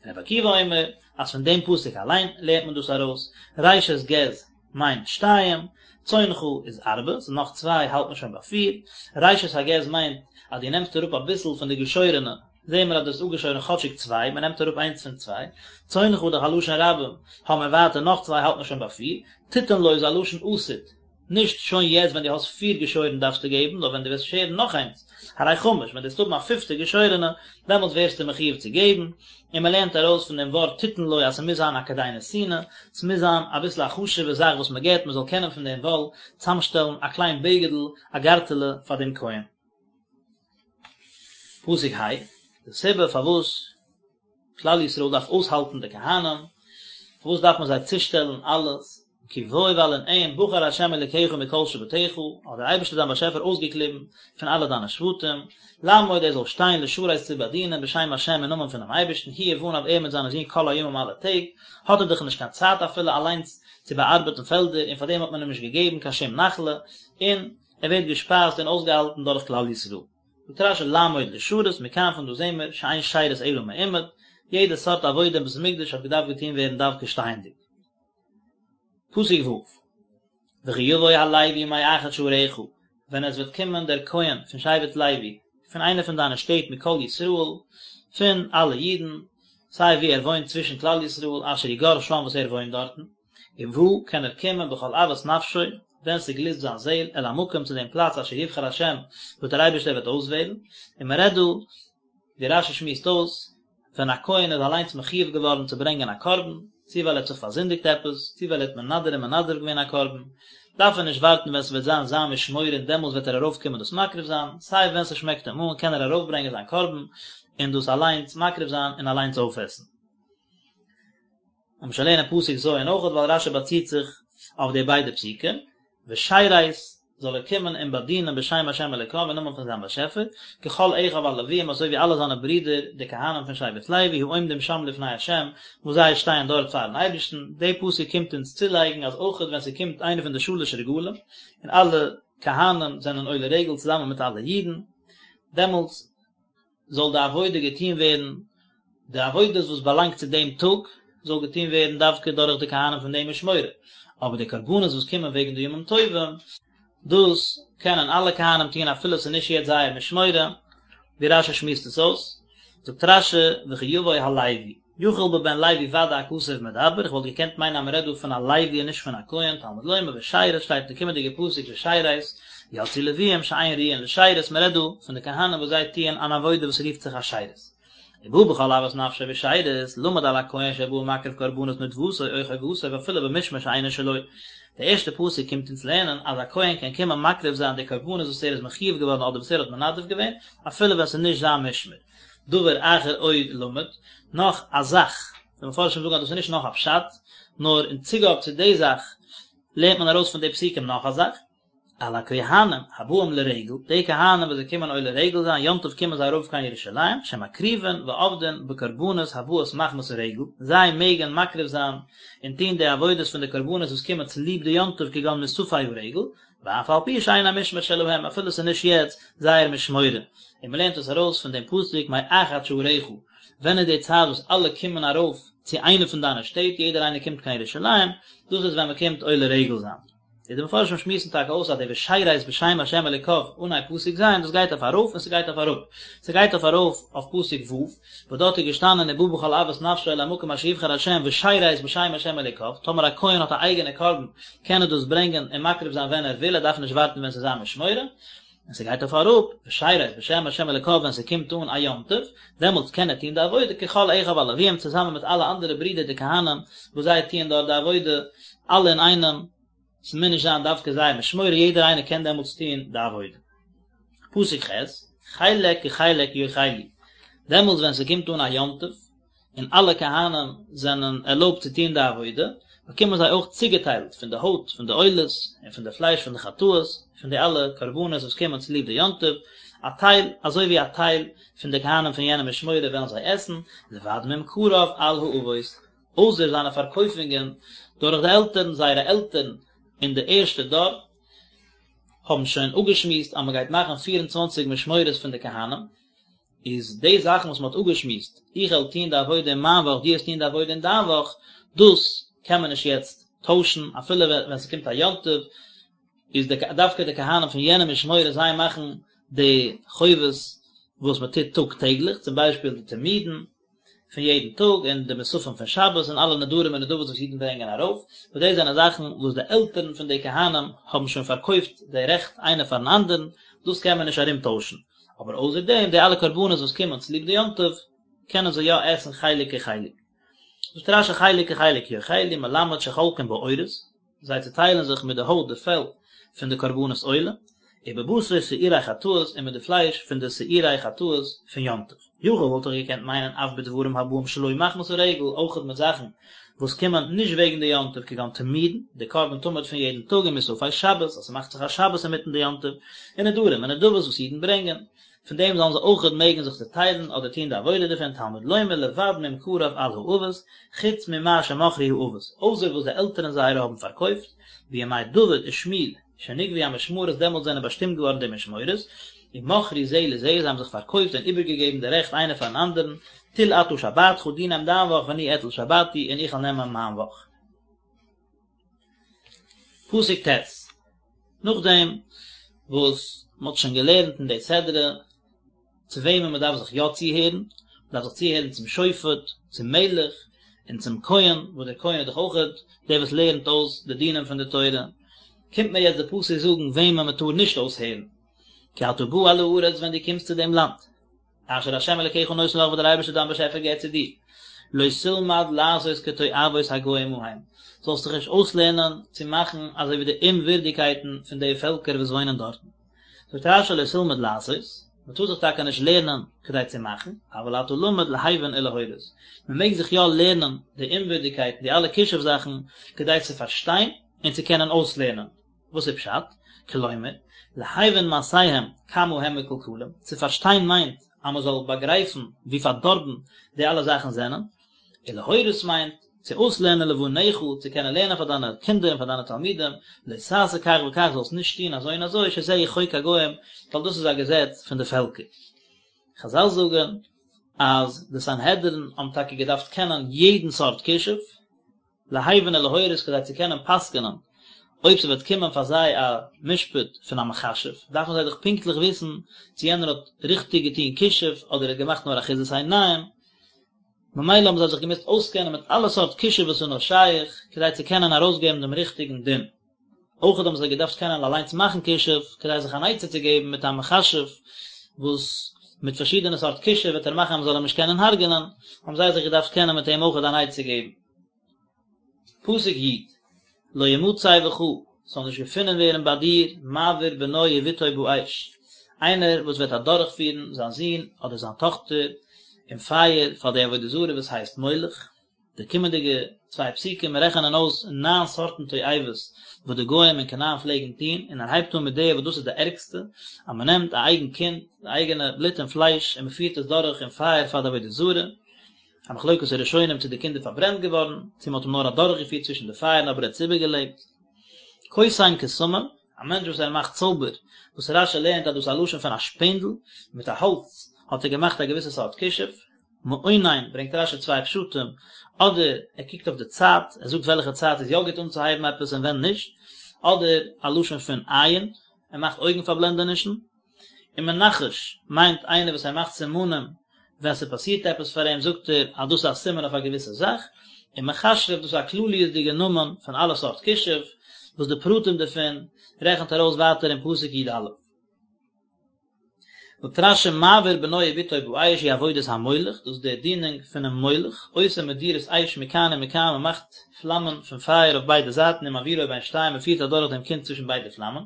רבי עקיבא אומר אז פון דעם פסוק אליין לערנט מען דאס ארויס, ראשית גז מיינט שתיים, צאנך איז ארבע, ס'איז נאך צוויי האלט מען שוין ביי פיר, ראשית הגז מיינט אז דו נעמסט אראפ אביסל פון די געשוירענע, זעהן מיר אז דו האסט אפגעשוירן כאטשיג צוויי, מען נעמט אראפ איינס פון צוויי, צאנך איז דאך א לשון רבים, האבן מיר ווייטער נאך צוויי האלט מען שוין ביי פיר, תתן לו איז א לשון עתיד, נישט שוין יעצט ווען דו האסט פיר געשוירן דארפסטו געבן, נאר ווען דו וועסט שערן נאך איינס, הרי חמש, ווען דו וועסט האבן א פיפטע געשוירענע, דעמאלטס ווערסטו מחויב צו געבן, און מען לערנט ארויס פון דעם ווארט תתן לו אז ס'מוז זיין א כדי נתינה, ס'מוז זיין אביסל א חשוב'ע זאך וואס מען געבט, מען זאל קענען פון דעם וואל צאמשטעלן א קליין בגד'ל, א גארטעלע פאר דעם כהן. פסוק ה', די סיבה פארוואס כלל ישראל דארף אויסהאלטן די כהנים, פארוואס דארף מען זיי צושטעלן אלעס, כי בו ווייל אין אים בחר ה' אלוקיך מכל שבטיך, האט דער אייבערשטער דיין באשעפער אויסגעקליבן פון אלע דיינע שבטים, לעמוד ער זאל שטיין לשרת צו באדינען בשם ה' אין נאמען פונעם אייבערשטן, הוא ובניו ער מיט זיינע זין כל הימים אלע טעג, האט ער דאך נישט קיין צייט אפילו אליינס צו באארבעטן פעלדער, און פארדעם האט מען אים נישט געגעבן קיין שום נחלה, און ער ווערט געשפייזט און אויסגעהאלטן דורך כלל ישראל. זאגט רש"י לעמוד לשרת, מכאן פון דא זעהן מיר שאין שירות אלא מעומד, יעדע סארט עבודה אין בית המקדש האט געדארפט געטוהן ווערן דווקא שטייענדיג. פסוק ו', וכי יבוא הלוי מאחד שעריך, ווען עס וועט קומען דער כהן פון שבט לוי, פון איינע פון דיינע שטעט מכל ישראל, פון אלע אידן, סיי וואו ער וואוינט צווישן כלל ישראל, אשר הוא גר שם וואס ער וואוינט דארטן, ובא קען ער קומען בכל אוות נפשו, ווען ס'גליסט זיין זעהל, אל המקום צו דעם פלאץ אשר יבחר השם, וואס דער אייבערשטער וועט אויסוועלן, און מען רעדט דא, ווי רש"י שמועסט אויס, ווען א כהן איז אליינס מחויב געווארן צו ברענגען א קרבן, צו ווייל ער האט זיך פארזינדיגט עפעס, צו ווייל ער האט מנדר און מנדב געווען א קרבן, דארף ער נישט ווארטן ווען ס'וועט זיין זיין משמורה און דעמאלס וועט ער ארויפקומען דאס מקריב זיין, סיי ווען ס'שמעקט אים אן קען ער ארויפברענגען זיין קרבן און דאס אליינס מקריב זיין און אליינס אויפעסן. לאמיר שוין לערנען פסוק ז' אויכעט ווייל רש"י באציט זיך אויף די ביידע פסוקים, ושרת זאל ער קומען און באדינען בשם השם אלוקיו אין נאמען פון זיין באשעפער, ככל אחיו הלוויים אזוי ווי אלע זיינע ברידער די כהנים פון שבט לוי העומדים שם לפני השם וואס זיי שטייען דארט פארן אייבערשטן, די פסוק קומט אונז צולייגן אז אויכעט ווען ס'קומט איינער פון די שלש רגלים און אלע כהנים זענען עולה רגל צוזאמען מיט אלע אידן, דעמאלטס זאל די עבודה געטון ווערן, די עבודות וואס באלאנגט צו דעם טאג, זאל געטון ווערן דווקא דורך די כהנים פון דעם משמורה, אבער די קרבנות וואס קומען וועגן די ימים טובים, דאס קענען אלע כהנים טון אפילו עס איז נישט יעצט זייער משמורה, ווי רש"י שמועסט עס אויס, זאגט רש"י, וכי יבוא הלוי. יכול בבן לוי ודאי הכתוב מדבר, איך וואלט געקענט מיינען אז מען רעדט דא פון א לוי און נישט פון א כהן, תלמוד לומר ושרת שטייט אין די קומענדיגע פסוק ושרת, יצאו לוויים שאין ראויין לשירות, מען רעדט דא פון די כהנים וואס זיי טוען אן עבודה וואס רופט זיך א שירות. ובא בכל אוות נפשו ושרת, למד על הכהן שבא ומקריב קרבנות נדבתו או חובתו ואפילו במשמר שאינו שלו. די ערשטע פסוק קומט אונז לערנען אז א כהן קען קומען מקריב זיין די קרבנות וואס ער איז מחויב געווארן אדער וואס ער האט מנדב געווען, אפילו ווען ס'איז נישט זיין משמר. דבר אחר עוד למד, נאך א זאך, די מפרשים זאגן אז דאס איז נישט נאך א פשט, נאר אין צוגאב צו די זאך לערנט מען ארויס פון די פסוקים נאך א זאך, על הכהנים הבאים לרגל, די כהנים וואס זיי קומען עולה רגל זיין יום טוב קומען זיי ארויף קיין ירושלים, שמקריבין ועובדין בקרבנות הבאות מחמת הרגל, זיי מעגן מקריב זיין און טון די עבודות פון די קרבנות וואס קומען צוליב די יום טוב כגון מוספי הרגל, ואף על פי שאין המשמר שלהם, אפילו ס'איז נישט יעצט זייער משמורה, און מ'לערנט עס ארויס פון דעם פסוק מאחד שעריך, ווען איז די צייט וואס אלע קומען ארויף צו איינע פון דיינע שטעט, יעדער איינער קומט קיין ירושלים, דאס איז ווען מ'קומט עולה רגל זיין. איז די מפרשים שמועסן טאקע אויס אז די ושרת בשם השם אלוקיו אנהייב פסוק ז' דאס גייט אויף ארויף און ס'גייט אויף אראפ, ס'גייט אויף ארויף אויף פסוק ו' וואס דארט איז געשטאנען ובא בכל אוות נפשו אל המקום אשר יבחר השם ושרת בשם השם אלוקיו, טאמער א כהן האט א אייגענע קרבן קען ער דאס ברענגען און מקריב זיין ווען ער וויל, ער דארף נישט ווארטן ווען ס'איז זיין משמורה, און ס'גייט אויף אראפ, ושרת בשם השם אלוקיו ווען ס'קומט אן א יום טוב, דעמאלטס קען ער טון די עבודה ככל אחיו הלוויים צוזאמען מיט אלע אנדערע ברידער די כהנים וואס זיי טוען דארט די עבודה אלע אינאיינעם, ס'מוז נישט זיין דווקא זייער משמורה, יעדער איינער קען דעמאלטס טון די עבודה. פסוק ח', חלק כחלק יאכלו, דעמאלטס ווען ס'קומט אן א יום טוב, און אלע כהנים זענען ערלויבט צו טון די עבודה, באקומען זיי אויך צוגעטיילט פון די הויט פון די עולות און פון די פלייש פון די חטאות, פון די אלע קרבנות וואס קומען צוליב די יום טוב, א טייל, אזוי ווי א טייל פון די כהנים פון יענע משמורה וועלן זיי עסן, לבד ממכריו על האבות, אויסער זיינע פארקויפונגען דורך די עלטערן, זייערע עלטערן אין די ערשטע דור האבן שוין אפגעשמועסט אז מען גייט מאכן פיר און צוואנציג משמורות פון די כהנים, איז די זאכן וואס מען האט אפגעשמועסט, איך וועל טון די עבודה אין מיין וואך, דו וועסט טון די עבודה אין דיין וואך, דאס קען מען נישט יעצט טוישן, אפילו ווען ס'קומט א יום טוב, איז די דווקא די כהנים פון יענע משמורה זיי מאכן די חובות וואס מען טוט טאג טעגליך, צום ביישפיל די תמידין, פון יעדן טאג און די מוספים פון שבת און אלע נדרים און נדבות וואס אידן ברענגען ארויף, וואס דאס זענען זאכן וואס די עלטערן פון די כהנים האבן שוין פארקויפט די רעכט איינער פארן אנדערן, דאס קען מען נישט ארומטוישן, אבער אויסער דעם די אלע קרבנות וואס קומען צוליב די יום טוב קענען זיי יא עסן חלק כחלק. זאגט רש"י חלק כחלק יאכלו מלמד שחולקין בעורות, זיי צעטיילן זיך מיט די הויט די פעל פון די קרבנות עולה, ובבשר שעירי חטאות און מיט די פלייש פון די שעירי חטאות פון יום טוב. יכול וואלט איך געקענט מיינען אף בדברים הבאים שלא מחמת הרגל, אויכעט מיט זאכן וואס קומען נישט וועגן די יום טוב כגון תמידין, די קרבן תמיד פון יעדן טאג און מוספי שבת, אז ס'מאכט זיך א שבת אינמיטן די יום טוב, און נדרים און נדבות וואס אידן ברענגען, פון דעם זאלן זיי אויכעט מעגן זיך צעטיילן אדער טון די עבודה דערפון, תלמוד לומר לבד ממכריו על האבות, חוץ ממה שמכרו האבות, אויסער וואס די עלטערן זייערע האבן פארקויפט, בימי דוד ושמואל, שנקבעו המשמרות דעמאלטס זענען באשטימט געווארן די משמורות, ומכרו זה לזה, זיי האבן זיך פארקויפט און איבערגעגעבן די רעכט איינער פארן אנדערן, טול אתה שבתך, דו נעם דיין וואך ואני אטול שבתי, און איך וועל נעמען מיין וואך. פסוק ט', נאכדעם וואס מען האט שוין געלערנט אין די סדרה צו וועמען מען דארף זיך יא צוהערן, מען דארף זיך צוהערן צום שופט, צום מלך, און צום כהן, וואס דער כהן איז דאך אויכעט דער וואס לערנט אויס די דינים פון די תורה, קומט מיר יעצט די פסוק זאגן וועמען מען טאר נישט אויסהערן, כי אתה בא אל הארץ ווען דו קומסט צו דעם לאנד, אשר ה' אלקיך נותן לך וואס דער אייבערשטער דיין באשעפער געבט צו דיר, לא תלמד לעשות כתועבות הגוים ההם, זאלסט דיך נישט אויסלערנען צו מאכן אזוי ווי די אומווירדיגקייטן פון די פעלקער וואס וואוינען דארטן. זאגט רש"י לא תלמד לעשות, מען טאר זיך טאקע נישט לערנען כדי צו מאכן, אבל אתה למד להבין ולהורות, מען מעג זיך יא לערנען די אומווירדיגקייטן, די אלע כישוף זאכן, כדי צו פארשטיין און צו קענען אויסלערנען. וואס איז פשט? כלומר, להבין מעשיהם כמה הם מקולקלים, צו פארשטיין מיינט אז מען זאל באגרייפן ווי פארדארבן די אלע זאכן זענען, ולהורות מיינט צו אויסלערנען לבניך, צו קענען לערנען פאר דיינע קינדער און פאר דיינע תלמידים, לא תעשה כך וכך, זאלסט נישט טון אזוי און אזוי, שזהו חוק הגוים, ווייל דאס איז א געזעץ פון די פעלקער. חזל זאגן אז די סנהדרין האבן טאקע געדארפט קענען יעדן סארט כישוף, להבין ולהורות כדי צו קענען פסק'נען אויב ס'וועט קומען פאר זיי א משפט פון א מכשף, דארפן זיי דאך פונקטליך וויסן צו יענער האט ריכטיג געטון כישוף אדער ער האט געמאכט נאר אחיזת עיניים, ממילא האבן זיי זיך געמוזט אויסקענען מיט אלע סארט כישוף וואס איז נאר שייך, כדי צו קענען ארויסגעבן דעם ריכטיגן דין. אויכעט האבן זיי געדארפט קענען אליינס מאכן כישוף, כדי זיך אן עצה צו געבן מיט א מכשף וואס מיט פארשידענע סארט כישוף וועט ער מאכן אז מ'זאל אים נישט קענען הרג'נען, האבן זיי זיך געדארפט קענען מיט אים אויכעט אן עצה געבן. פסוק י', לא ימצא בך, ס'זאל נישט געפונען ווערן ביי דיר, מעביר בנו ובתו באש, איינער וואס וועט אדורכפירן זיין זון אדער זיין טאכטער אין פייער פאר די עבודה זרה וואס הייסט מולך. די קומענדיגע צוויי פסוקים רעכענען אויס ניין סארטן תועבות וואס די גוים אין כנען פלעגן טון, און ער הייבט אן מיט די וואס דאס איז די ערגסטע, אז מען נעמט א אייגן קינד, די אייגענע בלוט און פלייש, און מען פירט עס דורך אין פייער פאר די עבודה זרה. א מחלוקת הראשונים צו די קינד איז פארברענט געווארן, צו מען האט אים נאר אדורכגעפירט צווישן די פייערן אבער ער האט עס איבערגעלעבט. קוסם קסמים, א מענטש וואס ער מאכט צויבער, וואס רש"י לערנט אז דאס איז א לשון פון א שפענדל, מיט א האלץ האט ער געמאכט א געוויסע סארט כישוף. מעונן, ברענגט רש"י צוויי פשטים, אדער ער קוקט אויף די צייט, ער זאגט וועלכע צייט איז יא גוט אנצוהייבן עפעס און ווען נישט, אדער א לשון פון עין, ער מאכט אויגן פארבלענדענישן. און מנחש מיינט איינער וואס ער מאכט סימנים ווען ס'פאסירט עפעס פאר אים זאגט ער אז דאס איז א סימן אויף א געוויסע זאך, און מכשף דאס איז א כלליות'דיגע נאמען פון אלע סארט כישוף, וואס די פרטים דערפון רעכנט ער אויס ווייטער אין פסוק י"א. זאגט רש"י מעביר בנו ובתו באש היא עבודת המולך, דאס איז די דינונג פונעם מולך, עושה מדורות אש מכאן ומכאן, מען מאכט פלאמען פון פייער אויף ביידע זייטן ומעבירו בין שתיהן מען פירט אדורך דעם קינד צווישן ביידע פלאמען,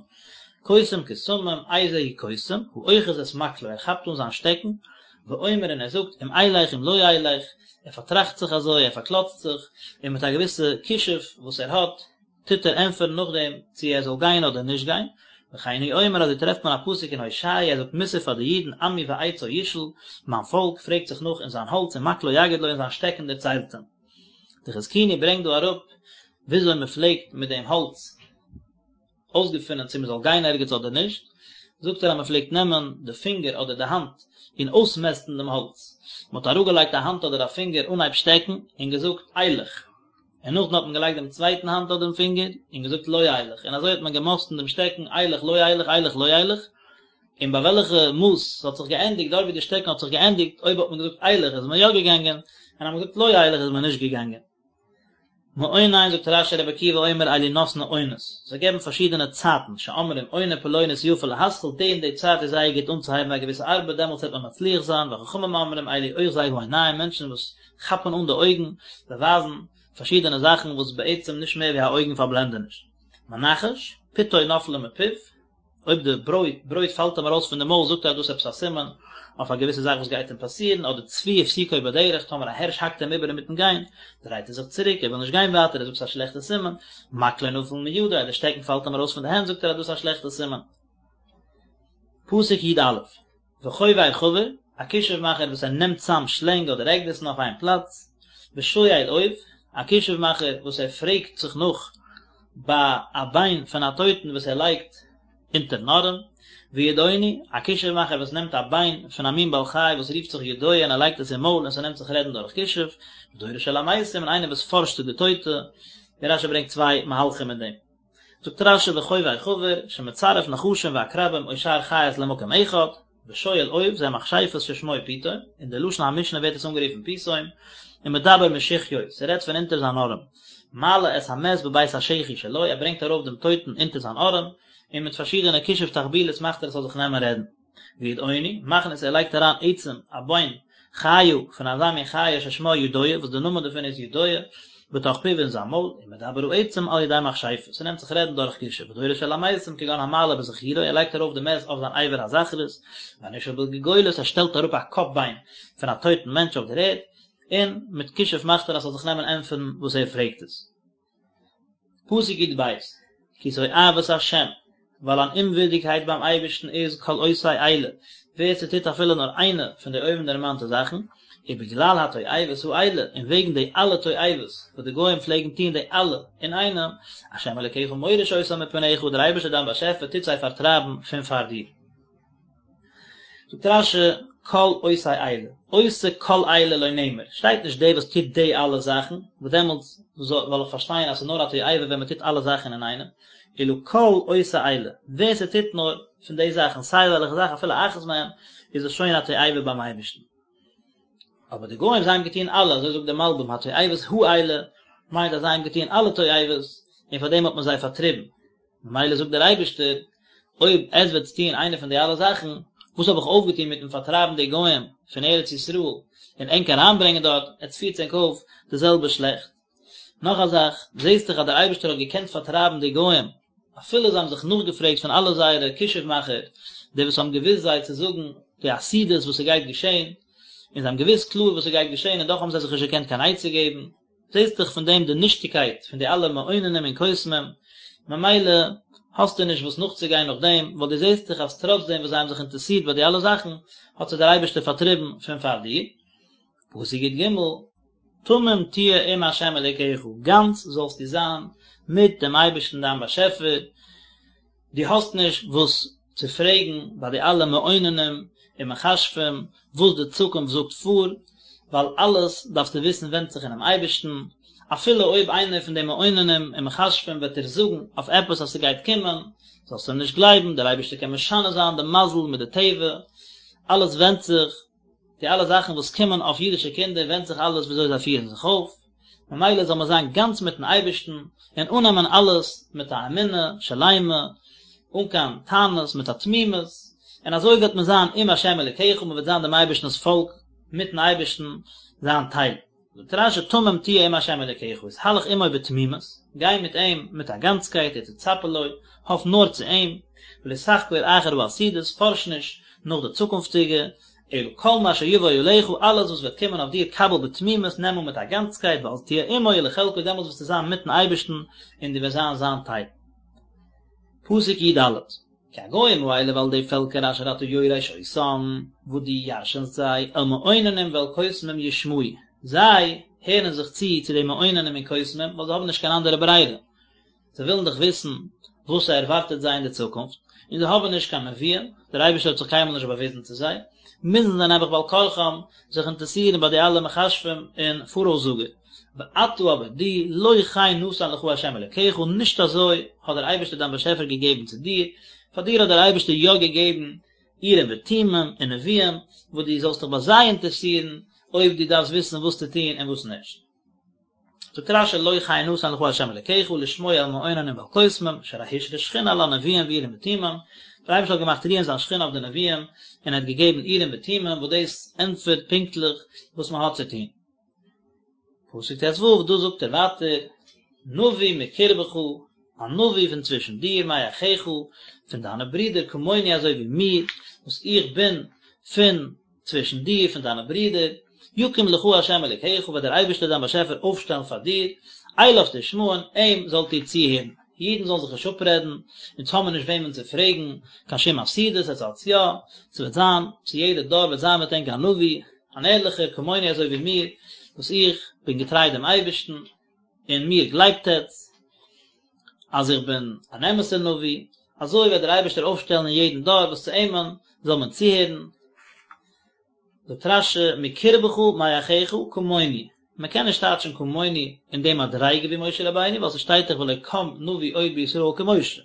קוסם קסמים, איזהו קוסם, האוחז את מקלו, ער כאפט אן זיין שטעקן, ואומר און ער זאגט אם אלך אם לא אלך, ער פארטראכט זיך אזוי, ער פארקלאצט זיך, און מיט א געוויסע כישוף וואס ער האט, טוט ער ענטפערן נאכדעם צו ער זאל גיין אדער נישט גיין, וכן הוא אומר אזוי טרעפט מען א פסוק אין הושע ער זאגט מוסר פאר די אידן עמי בעצו ישאל, מיין פאלק פרעגט זיך נאך אין זיין האלץ ומקלו יגיד לו און זיין שטעקן דערציילט אים. די חזקוני ברענגט דא אראפ וויאזוי מען פלעגט מיט דעם האלץ אויסגעפינען צו מען זאל גיין ערגעץ אדער נישט, זאגט ער אז מען פלעגט נעמען די פינגער אדער די האנט און אויסמעסטן דעם האלץ, מען האט אראפגעלייגט א האנט אדער א פינגער אנהייב שטעקן און געזאגט אלך, און נאכדעם האט מען געלייגט דעם צווייטן האנט אדער דעם פינגער און געזאגט לא אלך, און אזוי האט מען געמאסטן דעם שטעקן אלך לא אלך אלך לא אלך, און ביי וועלכע מאס ס'האט זיך געענדיגט, דארט ווי די שטעקן האט זיך געענדיגט, אויב האט מען געזאגט אלך איז מען יא געגאנגען, און אז מען האט געזאגט לא אלך איז מען נישט געגאנגען. מעונן זאגט רש"י רבי עקיבא אומר אלו נותני עונות, זיי געבן פארשידענע צייטן, שאומרים עונה פלונית יפה להתחיל, די און די צייט איז זייער גוט אנצוהייבן א געוויסע ארבעט דעמאלטס וועט מען מצליח זיין, וחכמים אומרים אלו אוחזי העיניים מענטשן וואס כאפן אן די אויגן, זיי ווייזן פארשידענע זאכן וואס בעצם נישט מער ווי א אויגן פארבלענדעניש. מנחש, פיתו נפלה מפיו, אויב די ברויט ברויט פאלט אים ארויס פון די מויל זאגט ער אז דאס איז עפעס א סימן אויף א געוויסע זאך וואס גייט אים פאסירן, אדער צבי הפסיקו בדרך, טאמער א הערש האקט אים איבער אינמיטן גיין, דרייט ער זיך צוריק, ער וויל נישט גיין ווייטער, ער זאגט ס'איז א שלעכטע סימן, מקלו נפל מידו, אז די שטעקן פאלט אים ארויס פון די הענט זאגט ער אז דאס איז א שלעכטע סימן. פסוק י"א, וחובר חבר, א כישוף מאכער וואס ער נעמט צאם שלענג אדער עקדיסן אויף איין פלאץ, ושואל אוב, א כישוף מאכער וואס ער פרעגט זיך נאך ביי א ביין פון א טויטן וואס ער לייגט אונטערן ארעם, וידעוני, א כישוף מאכער וואס נעמט א ביין פון א מין בעל חי וואס רופט זיך ידוע און ער לייגט עס אין מויל און ס'נעמט זיך רעדן דורך כישוף, ודורש אל המתים און איינער וואס פארשט צו די טויטע, ווי רש"י ברענגט צוויי מהלכים אין דעם. זאגט רש"י וחובר חבר, שמצרף נחשים ועקרבים או שאר חיות למקום אחד, ושואל אוב זה מכשפות ששמו פיתום, אין די לשון המשנה ווערט עס אנגערופן פיתום, ומדבר משחיו, ס'רעדט פון אונטער זיין ארעם, מעלה את המת בבית השחי שלו, ער ברענגט ארויף דעם טויטן אונטער זיין ארעם, און מיט פארשידענע כישוף תחבולות מאכט ער עס זאל זיך נעמען רעדן. וידעוני, מכניס ער לייגט אריין עצם, א ביין, חיה, פון אזא מין חיה ששמה ידוע, וואס די נאמען דערפון איז ידוע, בתוך פיו אין זיין מויל, ומדבר העצם על ידי מכשפה, ס'נעמט זיך רעדן דורך כישוף, ודורש אל המתים כגון המעלה בזכורו, ער לייגט ארויף די מת אויף זיין אבר הזכרות, והנשאל בגולגולת, ער שטעלט אראפ א קאפ ביין פון א טויטן מענטש אויף דער ערד, און מיט כישוף מאכט ער אז ס'זאל זיך נעמען ענטפערן וואס ער פרעגט עס. פסוק י"ב, כי תועבת השם, ווייל אן אומווירדיגקייט ביים אייבערשטן איז כל עושה אלה, ווער ס'טוט אפילו נאר איינע פון די אויבנדערמאנטע זאכן, ובגלל התועבות האלה, און וועגן די אלע תועבות וואס די גוים פלעגן טון די אלע אינאיינעם, השם אלוקיך מוריש אותם מפניך, דער אייבערשטער דיין באשעפער טוט זיי פארטרייבן פון פאר דיר. זאגט רש"י כל עושה אלה, עושה כל אלה לא נאמר, שטייט נישט דער וואס טוט די אלע זאכן, וואס דעמאלטס וועל איך פארשטיין אז ס'איז נאר א תועבה ווען מ'טוט אלע זאכן אינאיינעם, אלא כל עושה אלה, ווער ס'טוט נאר פון די זאכן, סיי וועלכע זאך אפילו אחת מהן, איז עס שוין א תועבה ביים אייבערשטן. אבער די גוים זיי האבן געטון אלע, אזוי זאגט דער מלבי"ם, התועבות האלה, מיינט אז זיי האבן געטון אלע תועבות, און פאר דעם האט מען זיי פארטריבן. ממילא זאגט דער אייבערשטער, אויב עטס וועטס טון איינע פון די אלע זאכן, וואס האב איך אויפגעטון מיטן פארטרייבן די גוים פון ארץ ישראל און ענק אריינברענגען דארט, עטס פירטס ענק אויף די זעלבע שלעכט. נאך א זאך, זעסט דאך אז דער אייבערשטער האט געקענט פארטרייבן די גוים, אפילו זיי האבן זיך נאכגעפרעגט פון אלע זייערע כישוף מאכער, די וואס האבן געוואוסט זיי צו זאגן די עתידות וואס ס'גייט געשען, און זיי האבן געוואוסט קלאר וואס ס'גייט געשען און דאך האבן זיי זיך נישט געקענט קיין עצה געבן. זעסט דאך פון דעם די נישטיגקייט פון די אלע מעוננים און קוסמים, ממילא האסטו נישט וואס נאכצוגיין נאך דעם, ווייל דו זעסט דאך אז טראץ דעם וואס זיי האבן זיך אינטערעסירט ביי די אלע זאכן, האט זיי דער אייבערשטער פארטריבן פון פאר דיר. פסוק י"ג, תמים תהיה עם ה' אלוקיך, גאנץ זאלסטו זיין מיט דעם אייבערשטן דיין באשעפער, דו האסט נישט וואס צו פרעגן ביי די אלע מעוננים און מכשפים וואס די צוקונפט זאגט פאר, ווייל אלעס דארפסטו וויסן ווענדט זיך אינעם אייבערשטן, אפילו אויב איינער פון די מעוננים און מכשפים וועט דיר זאגן אויף עפעס אז ס'גייט קומען, זאלסטו אים נישט גלייבן, דער אייבערשטער קען משנה זיין די מזל מיט די טבע, אלעס ווענדט זיך, די אלע זאכן וואס קומען אויף אידישע קינדער ווענדט זיך אלעס וויאזוי זיי פירן זיך אויף, ממילא זאל מען זיין גאנץ מיטן אייבערשטן און אננעמען אלעס מיט א אמונה שלימה, אן קיין טענות, מיט א תמימות, און אזוי וועט מען זיין עם השם אלוקיך, מען וועט זיין דעם אייבערשטנ'ס פאלק, מיטן אייבערשטן זיין טייל. זאגט רש"י תמים תהיה עם ה' אלוקיך, התהלך עמו בתמימות, גיי מיט אים מיט א גאנצקייט, ותצפה לו, האף נאר צו אים, ולא תחקור אחר העתידות, פארש נישט נאך די צוקונפטיגע, אלא כל מה שיבוא עליך, אלעס וואס וועט קומען אויף דיר קבל בתמימות, נעם אן מיט א גאנצקייט, ואז תהיה עמו ולחלקו, דעמאלטס וועסטו זיין מיטן אייבערשטן און דו וועסט זיין זיין טייל. פסוק י ד, כי הגוים האלה ווייל די פעלקער אשר אתה יורש אותם, וואס דו ירש'נסט זיי, אל מעוננים ואל קוסמים ישמעו, זיי הערן זיך צו צו די מעוננים און קוסמים, ווייל זיי האבן נישט קיין אנדערע ברירה, זיי ווילן דאך וויסן וואס ס'ערווארטעט זיי אין די צוקונפט, און זיי האבן נישט קיין נביאים, דער אייבערשטער האט זיך קיינמאל נישט באוויזן צו זיי, מוזן זיי נעבעך בעל כרחם זיך אינטערעסירן ביי די אלע מכשפים און פאראויסזאגער. ואתה אבער דו, לא כן נתן לך ה' אלוקיך, נישט אזוי האט דער אייבערשטער דיין באשעפער געגעבן צו דיר, פאר דיר האט דער אייבערשטער יא געגעבן אורים ותומים און נביאים, וואס דו זאלסט דיך ביי זיי אינטערעסירן אויב דו דארפסט וויסן וואס צו טון און וואס נישט. זאגט רשי לא כן נתן לך ה' אלקיך לשמוע אל מעוננים ואל קוסמים שהרי השרה שכינה על הנביאים ואורים ותומים, דער אייבערשטער האט געמאכט רוען זיין שכינה אויף די נביאים און ער האט געגעבן אורים ותומים וואס דאס ענטפערט פונקטליך וואס מען האט צו טון. פסוק ט ו, דא זאגט ער ווייטער נביא מקרבך, א נביא פון צווישן דיר, מאחיך, פון דיינע ברידער, כמוני אזוי ווי מיר, וואס איך בין פון צווישן דיר, פון דיינע ברידער, יקים לך ה' אלוקיך, וועט דער אייבערשטער דיין באשעפער אויפשטעלן פאר דיר, אליו תשמעון, אים זאלט איר צוהערן. אידן זאלן זיך נישט אפרעדן, אונז האבן מיר נישט וועמען צו פרעגן, קיין שום עתידות, עטס האטס יא, ס'וועט זיין, צו יעדע דור וועט זיין מיט ענק א נביא, אן ערליכער, כמוני אזוי ווי מיר, וואס איך בין געטריי דעם אייבערשטן, און מיר גלייבט עטס, אז איך בין אן אמת'ער נביא, אזוי וועט דער אייבערשטער אויפשטעלן אין יעדן דור וואס צו אימען זאל מען צוהערן. זאגט רשי, מקרבך מאחיך כמוני, מען קען נישט טייטשן כמוני אין די מדריגה ווי משה רבינו, ווייל ס'שטייט דאך ולא קם נביא עוד בישראל כמשה,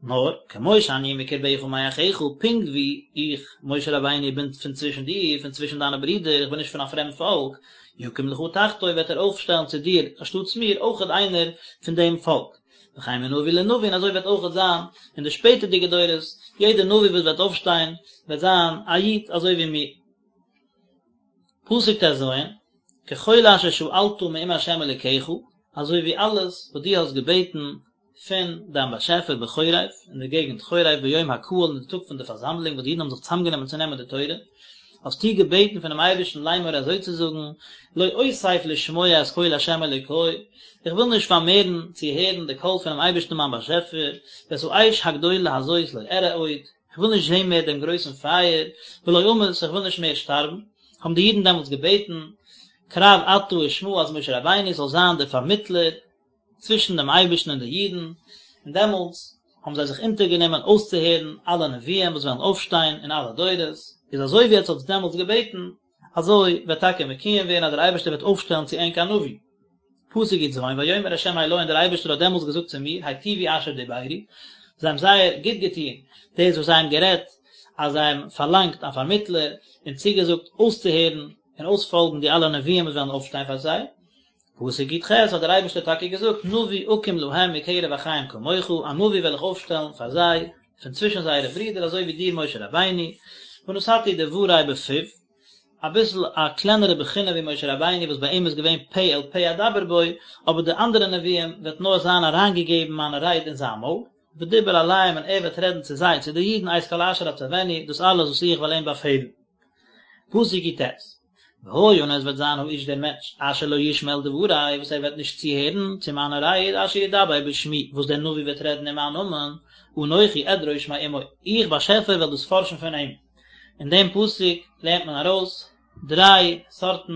נאר, כמו שאני מקרבך מאחיך, פונקט ווי איך, משה רבינו, בין פון צווישן דיר, פון צווישן דיינע ברידער, איך בין נישט פון א פרעמד פאלק, יקים לך תחתי, וועט ער אויפשטעלן צו דיר, אנשטאטס מיר, אויכעט איינער פון דעם פאלק. וכן מנביא לנביא, און אזוי וועט אויכעט זיין אין די שפעטערדיגע דורות, יעדער נביא וואס וועט אויפשטיין, וועט זיין א איד אזוי ווי מיר. פסוק ט ז, ככל אשר שאלת מעם ה' אלוקיך, אזוי ווי אלעס וואס דו האסט געבעטן פון דיין באשעפער בחורב, אין די געגנט חורב ביום הקהל אין די טאג פון די פארזאמלונג וואס די אידן האבן זיך צוזאמגענומען צו נעמען די תורה, האסטו געבעטן פונעם אייבערשטן לאמור אזוי צו זאגן, לא אוסיף לשמוע את קול ה' אלוקי, איך וויל נישט פארמערן צו הערן די קול פונעם אייבערשטן מיין באשעפער, ואת האש הגדולה הזאת לא אראה עוד, איך וויל נישט זען מער דעם גרויסן פייער, ולא אמות, איך וויל נישט מער שטארבן. האבן די אידן דעמאלטס געבעטן, קרב אתה ושמעה אז משה רבינו זאל זיין דער פארמיטלער, צווישן דעם אייבערשטן און די אידן, און דעמאלטס האבן זיי זיך אונטערגענומען אויסצוהערן אלע נביאים וואס וועלן אויפשטיין אין אלע דורות, איז אזוי ווי עטס האטס דעמאלטס געבעטן, אזוי וועט טאקע מקוים ווערן אז דער אייבערשטער וועט אויפשטעלן צו ענק א נביא. פסוק י ז, ויאמר ה' אלי און דער אייבערשטער האט דעמאלטס געזאגט צו מיר, היטיבו אשר דברו, זיי האבן זייער גוט געטון דאס וואס זיי האבן גערעדט, אז זיי האבן פארלאנגט א פארמיטלער, און צוגעזאגט אויסצוהערן און אויספאלגן די אלע נביאים וואס וועלן אויפשטיין פאר זיי, פסוק י ח האט דער אייבערשטער טאקע געזאגט נביא אקים להם מקרב אחיהם כמוך, א נביא וועל איך אויפשטעלן פאר זיי פון צווישן זייערע ברידער אזוי ווי דיר משה רבינו, ונתתי דברי בפיו, אביסל א קלענערע בחינה ווי משה רבינו וואס ביי אים איז געווען פה אל פה אדבר בו, אבער די אנדערע נביאים וועט נאר זיין אריינגעגעבן מיינע רייד אין זיין מויל, ודיבר אליהם און ער וועט רעדן צו זיי, צו די אידן, את כל אשר אצונו, דאס אלעס וואס איך וועל אים באפעלן. פסוק י ט, והיה און עס וועט זיין האיש דער מענטש, אשר לא ישמע אל דברי, וואס ער וועט נישט צוהערן צו מיינע רייד, אשר ידבר בשמי, וואס דער נביא וועט רעדן אין מיין נאמען, אנכי אדרוש מעמו, איך באשעפער וועל דאס פארשן פון אים. אין דעם פסוק לערנט מען ארויס דריי סארטן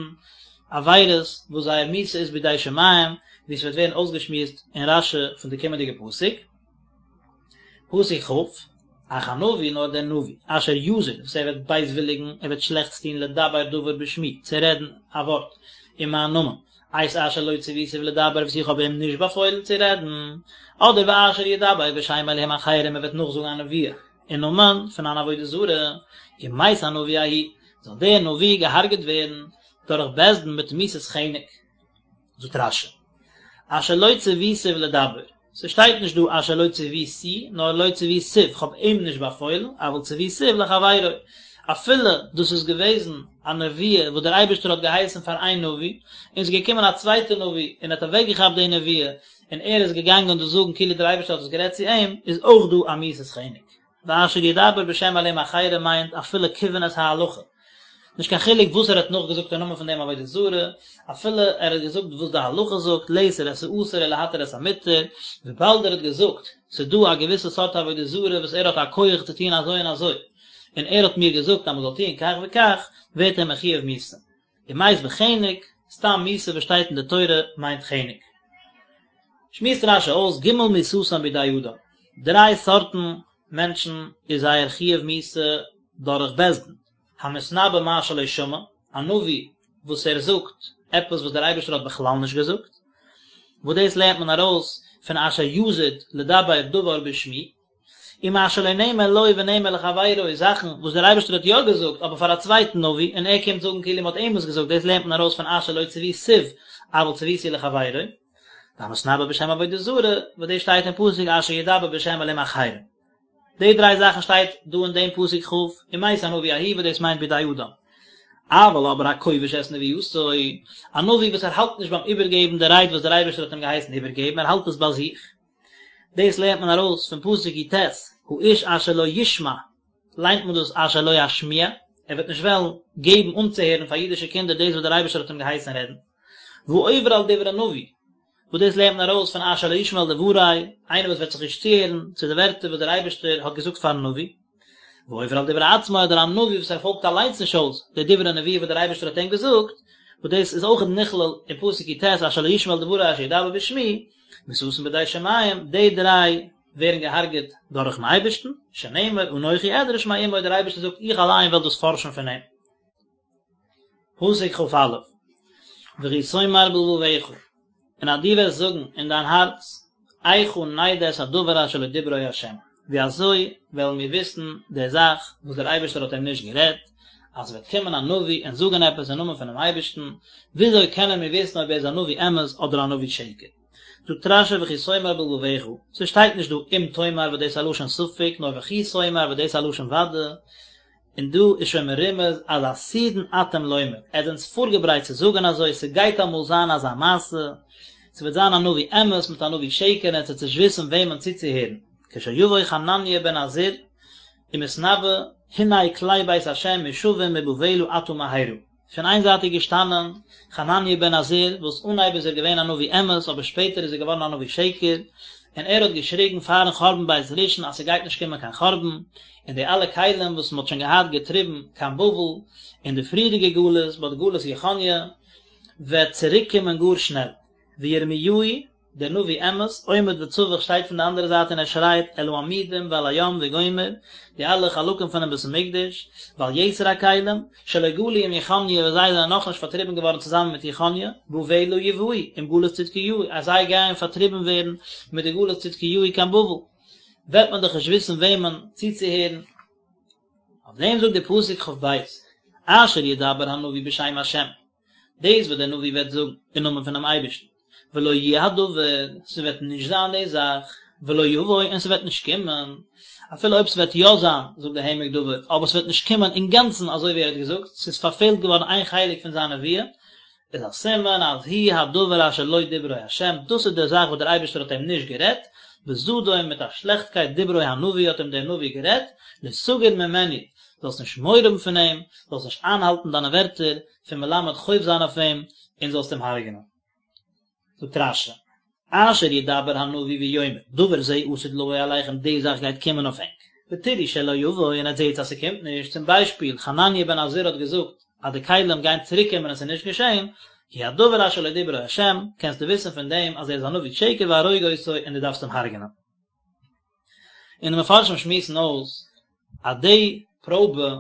עבירות וואס זייער מיתה איז בידי שמים, ווי עס וועט ווערן אויסגעשמועסט אין רשי פון די קומענדיגע פסוק. פסוק כ, אך הנביא נאר דער נביא, אשר יזיד, וואס ער וועט בייזוויליגן, ער וועט שלעכטס טון לדבר דבר בשמי, צו רעדן א ווארט אין מיין נאמען, את אשר לא צויתיו לדבר וואס איך האב אים נישט באפוילן צו רעדן, אדער ואשר ידבר בשם אלהים אחרים ער וועט נאכזאגן א נבואה אין נאמען פון אן עבודה זרה, ומת הנביא ההוא, זאל דער נביא געהארגעט ווערן דורך בית דין מיט מיתת חנק. זאגט רשי, אשר לא צויתיו לדבר, ס'שטייט נישט דא אשר לא צויתי, נאר לא צויתיו, כ'האב אים נישט באפוילן, אבל צויתיו לחבירו, אפילו דאס איז געוועזן א נבואה וואס דער אייבערשטער האט געהייסן פאר איין נביא, און ס'איז געקומען א צווייטער נביא און האט אוועקגעכאפט די נבואה, און ער איז געגאנגען דאס זאגן כאילו דער אייבערשטער האט עס גערעדט צו אים, איז אויך דא א מיתת חנק. ואשר ידבר בשם אלהים אחרים מיינט אפילו כיוון את ההלכה. נישט קיין חילוק וואס ער האט נאכגעזאגט אין נאמען פון דעם עבודה זרה, אפילו ער האט געזאגט וואס די הלכה זאגט, לאסור את האסור ולהתיר את המותר, וויבאלד ער האט געזאגט, ס'איז דא א געוויסע סארט עבודה זרה וואס ער האט א כח צו טון אזוי און אזוי, און ער האט מיר געזאגט אז מ'זאל טון כך וכך, ווערט ער מחויב מיתה. ומת בחנק, סתם מיתה וואס שטייט אין די תורה מיינט חנק. שמועסט רש"י אויס ג' מיתתן בידי אדם, דריי סארטן מענטשן איז זייער חיוב מיתה דורך בית דין, המתנבא מה שלא שמע, א נביא וואס ער זאגט עפעס וואס דער אייבערשטער האט בכלל נישט געזאגט, וואס דאס לערנט מען ארויס פון אשר יזיד לדבר דבר בשמי, ומה שלא נאמר לו ונאמר לחבירו, זאכן וואס דער אייבערשטער האט יא געזאגט אבער פאר א צווייטן נביא, און ער קומט זאגן כאילו מען האט אים עס געזאגט, דאס לערנט מען ארויס פון אשר לא צויתיו אבל צויתיו לחבירו, והמתנבא בשם עבודה זרה, וואס דאס שטייט אין פסוק אשר ידבר בשם אלהים אחרים. די דריי זאכן שטייט דא אין דעם פסוק כ', ומת הנביא ההוא וואס דאס מיינט בידי אדם. אבל אבער הכובש את נבואתו, א נביא וואס ער האלט נישט ביים איבערגעבן די רייד וואס דער אייבערשטער האט אים געהייסן איבערגעבן, ער האלט עס ביי זיך. דאס לערנט מען ארויס פון פסוק י"ט, האיש אשר לא ישמע, ליינט מען דאס אשר לא ישמיע, ער וועט נישט וועלן געבן אנצוהערן פאר אידישע קינדער דאס וואס דער אייבערשטער האט אים געהייסן רעדן. והעובר על דברי נביא, וואס דאס לערנט מען ארויס פון אשר לא ישמע אל דברי, איינער וואס וועט זיך נישט צוהערן צו די ווערטער וואס דער אייבערשטער האט געזאגט פארן נביא. והעובר על דברי עצמו אדער א נביא וואס ער פאלגט אליינס נישט אויס די דברי נבואה וואס דער אייבערשטער האט אים געזאגט, וואס דאס איז אויך נכלל אין פסוק י"ט אשר לא ישמע אל דברי אשר ידבר בשמי, מיתתן בידי שמים, די דריי ווערן געהארגעט דורכן אייבערשטן, שנאמר אנכי אדרש מעמו דער אייבערשטער זאגט איך אליין וועל דאס פארשן פון אים. פסוק כ"א, וכי תאמר בלבבך, און אז דו וועסט זאגן אין דיין הארץ, איכה נדע את הדבר אשר לא דברו ה', ווי אזוי וועלן מיר וויסן די זאך וואס דער אייבערשטער האט אים נישט גערעדט, אז ס'וועט קומען א נביא און זאגן עפעס אין נאמען פונעם אייבערשטן, וויאזוי קענען מיר וויסן אויב ער איז א נביא אמת אדער א נביא שקר? זאגט רש"י וכי תאמר בלבבך, ס'שטייט נישט דא אם תאמר וואס דאס איז א לשון ספק, נאר וכי תאמר וואס דאס איז א לשון ודאי, און דא איז שוין מרומז אז עתידין אתם לומר, עטס זענטס פארגעברייט צו זאגן אזוי, ס'גייט אמאל זיין אזא מעשה, ס'וועט זיין א נביא אמת מיט א נביא שקר און עטס וועטס נישט וויסן וועמען צוצוהערן, כשיבוא חנניה בן עזור ומתנבא, הנה כלי בית השם מושבים מבבלה עתה מהרה. פון איין זייט איז געשטאנען חנניה בן עזור, וואס אנהייב איז ער געווען א נביא אמת, אבער שפעטער איז ער געווארן א נביא שקר, און ער האט געשריגן פארן חורבן בית ראשון אז ס'גייט נישט קומען קיין חורבן, און די אלע כלים וואס מ'האט שוין געהאט געטריבן קיין בבל אין די פריערדיגע גלות, ביי די גלות יכניה, וועט צוריק קומען גאר שנעל. וירמיהו דער נביא אמת, עומד וצווח שטייט פון די אנדערע זייט און ער שרייט אל העמודים ואל הים וגומר, די אלע חלקים פונעם בית המקדש, ועל יתר הכלים, שלא גלו עם יכניה וואס זיי זענען נאכנישט פארטריבן געווארן צוזאמען מיט יכניה, בבלה יובאו, עם גלות צדקיהו, אז זיי גייען פארטריבן ווערן מיט די גלות צדקיהו קיין בבל, וועט מען דאך נישט וויסן וועמען צוצוהערן. אויף דעם זאגט דער פסוק כ"ב, אשר ידבר הנביא בשם השם, דאס וואס דער נביא וועט זאגן אין נאמען פונעם אייבערשטן, ולא יהיה הדבר, ס'וועט נישט זיין די זאך, ולא יבוא, און ס'וועט נישט קומען, אפילו אויב ס'וועט יא זיין, זאגט דער העמק דבר, אבער ס'וועט נישט קומען אינגאנצן אזוי ווי ער האט געזאגט, ס'איז פארפעלט געווארן איין חלק פון זיין נבואה, איז א סימן אז הוא הדבר אשר לא דברו ה', דאס איז די זאך וואס דער אייבערשטער האט אים נישט גערעדט, בזדון מיט א שלעכטקייט דברו הנביא האט אים דער נביא גערעדט, לא תגור ממנו, זאלסט נישט מורא האבן פון אים, זאלסט נישט איינהאלטן דיינע ווערטער, פון מלמד חוב זיין אויף אים, און זאלסט אים הרג'נען. זאגט רש"י, אשר ידבר הנביא ויאמר, דבר זה עתיד לבוא עליכם, די זאך גייט קומען אויף ענק, ותראו שלא יבוא, און עטס זעטס אז ס'קומט נישט, צום ביישפיל, חנניה בן עזור האט געזאגט אז די כלים גייען צוריק קומען און ס'איז נישט געשען, הוא הדבר אשר לא דברו ה', קענסטו וויסן פון דעם אז ער איז א נביא שקר והרוג אותו און דו דארפסט אים הרג'נען. און די מפרשים שמועסן אויס אז די פראבע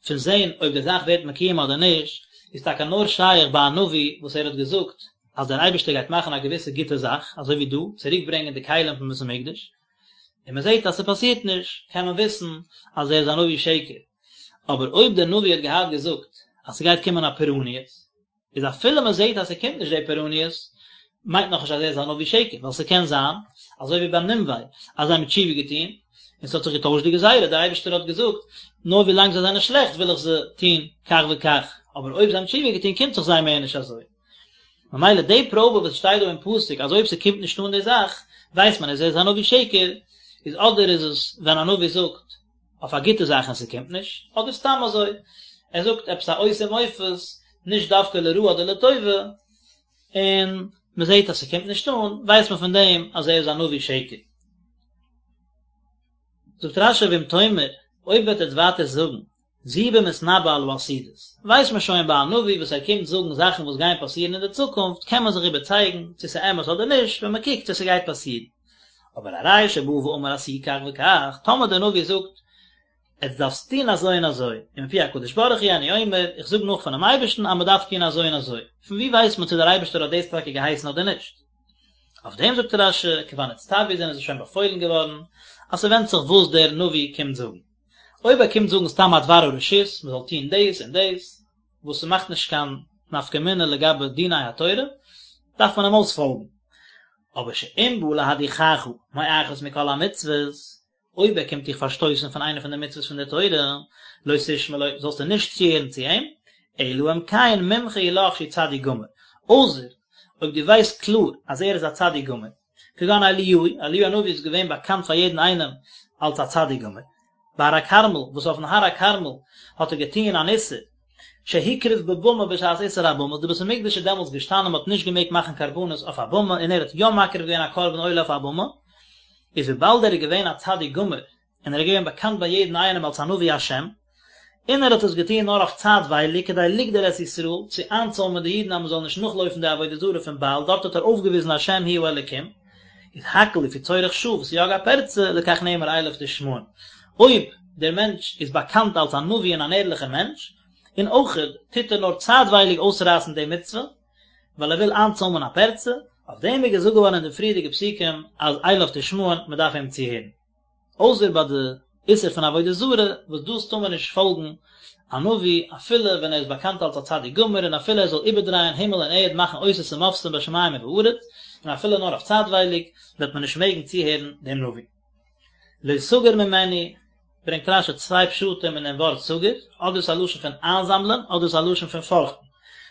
פון זען אויב די זאך ווערט מקוים אדער נישט, איז טאקע נאר שייך ביי א נביא וואס ער האט געזאגט אז דער אייבערשטער גייט מאכן א געוויסע גוטע זאך, אזוי ווי דא, צוריק ברענגען די כלים פון בית המקדש, און מען זעט אז ס'פאסירט נישט, קען מען וויסן אז ער איז א נביא שקר. אבער אויב דער נביא האט געהאט געזאגט אז ס'גייט קומען א פורעניות, איז אפילו מען זעט אז ס'קומט נישט די פורעניות, מיינט נאכנישט אז ער איז א נביא שקר, ווייל ס'קען זיין, אזוי ווי ביי נינווה, אז זיי האבן תשובה געטון, און ס'האט זיך געטוישט די גזירה, דער אייבערשטער האט געזאגט, נאר ווי לאנג זיי זענען שלעכט וויל איך זיי טון כך וכך, אבער אויב זיי האבן תשובה געטון קומט זיך זיי מער נישט אזוי. ממילא די פראבע וואס שטייט דא אין פסוק אז אויב ס'קומט נישט אן די זאך, ווייסט מען אז ער איז א נביא שקר, איז אדער איז עס ווען א נביא זאגט, אויף א גוטע זאך און ס'קומט נישט, אדער סתם אזוי. ער זאגט עפעס א אות ומופת, נישט דווקא לרעה אדער לטובה, און מען זעט אז ס'קומט נישט אן, ווייסט מען פון דעם אז ער איז א נביא שקר. זאגט רש"י ואם תאמר, אויב וועט עטס ווייטער זאגן, זו במתנבא על העתידות, ווייסט מען שוין ביי א נביא וואס ער קומט זאגן זאכן וואס גייען פאסירן אין די צוקונפט קען מען זיך איבערצייגן צו ס'איז אמת אדער נישט ווען מען קוקט צו ס'גייט פאסירן. אבער הרי שבא ואמר עשו כך וכך, טאמער דער נביא זאגט עטס דארפסט טון אזוי און אזוי, ומפי הקדוש ברוך הוא אני אומר, איך זאג נאך פונעם אייבערשטן אז מען דארף טון אזוי און אזוי, פון וואו ווייסט מען צו דער אייבערשטער האט דאס טאקע געהייסן אדער נישט? אויף דעם זאגט רש"י, כבר נצטוו זענען זיי שוין באפוילן געווארן, אז ס'ווענדט זיך וואס דער נביא קומט זאגן. אויב ער קומט זאגן סתם א דבר הרשות, מען זאל טון דאס און דאס, וואס ס'מאכט נישט קיין נפקא מינה לגבי דיני התורה, דארף מען אים אויספאלגן. אבער שאם בא להדיחך מאחת מכל המצוות, אויב ער קומט דיך פארשטויסן פון איינע פון די מצוות פון דער תורה, לא תשמע לו, זאלסטו נישט צוהערן צו אים, אלא אם כן מומחה הוא לך שהוא צדיק גמור, אויסער אויב דו ווייסט קלאר אז ער איז א צדיק גמור, כגון אליהו, אליהו הנביא איז געווען באקאנט פאר יעדן איינעם אלס א צדיק גמור. בהר הכרמל, וואס אויפן הר הכרמל האט ער געטוען אן איסור, שהקריב בבמה בשעת איסור הבמות, די בית המקדש איז דעמאלטס געשטאנען מען האט נישט געמעגט מאכן קרבנות אויף א במה און ער האט יא מקריב געווען א קרבן עולה אויף א במה, איז וויבאלד ער איז געווען א צדיק גמור און ער איז געווען באקאנט ביי יעדן איינעם אלס א נביא השם, און ער האט עס געטון נאר אויף צייטווייליג כדי לגדור את ישראל, צו איינצוימען די אידן אז מען זאל נישט נאכלויפן די עבודה זרה פון בעל, דארט האט ער אויפגעוויזן השם הוא האלקים, איז הכל לפי צורך שעה וסייג הפרצה, לכך נאמר אליו תשמעון. אויב דער מענטש איז באקאנט אלס א נביא און אן ערליכער מענטש, און אויכעט טוט ער נאר צייטווייליג אויסרייסן די מצוה, ווייל ער וויל איינצוימען א פרצה, אויף דעם איז געזאגט געווארן אין די פריערדיגע פסוקים אז אליו תשמעון, מען דארף אים צוהערן. אויסער ביי די איסור פון עבודה זרה, וואס דאס טאר מען נישט פאלגן א נביא אפילו ווען ער איז באקאנט אלס א צדיק גמור און אפילו ער זאל איבערדרייען הימל און ערד מאכן אותות ומופתים בשמים ובארץ, און אפילו נאר אויף צייטווייליג, וועט מען נישט מעגן צוהערן דעם נביא. לא תגור ממנו, ברענגט רש"י צוויי פשטים אין דעם ווארט תגור, אדער איז א לשון פון איינזאמלען, אדער איז א לשון פון פארכטן.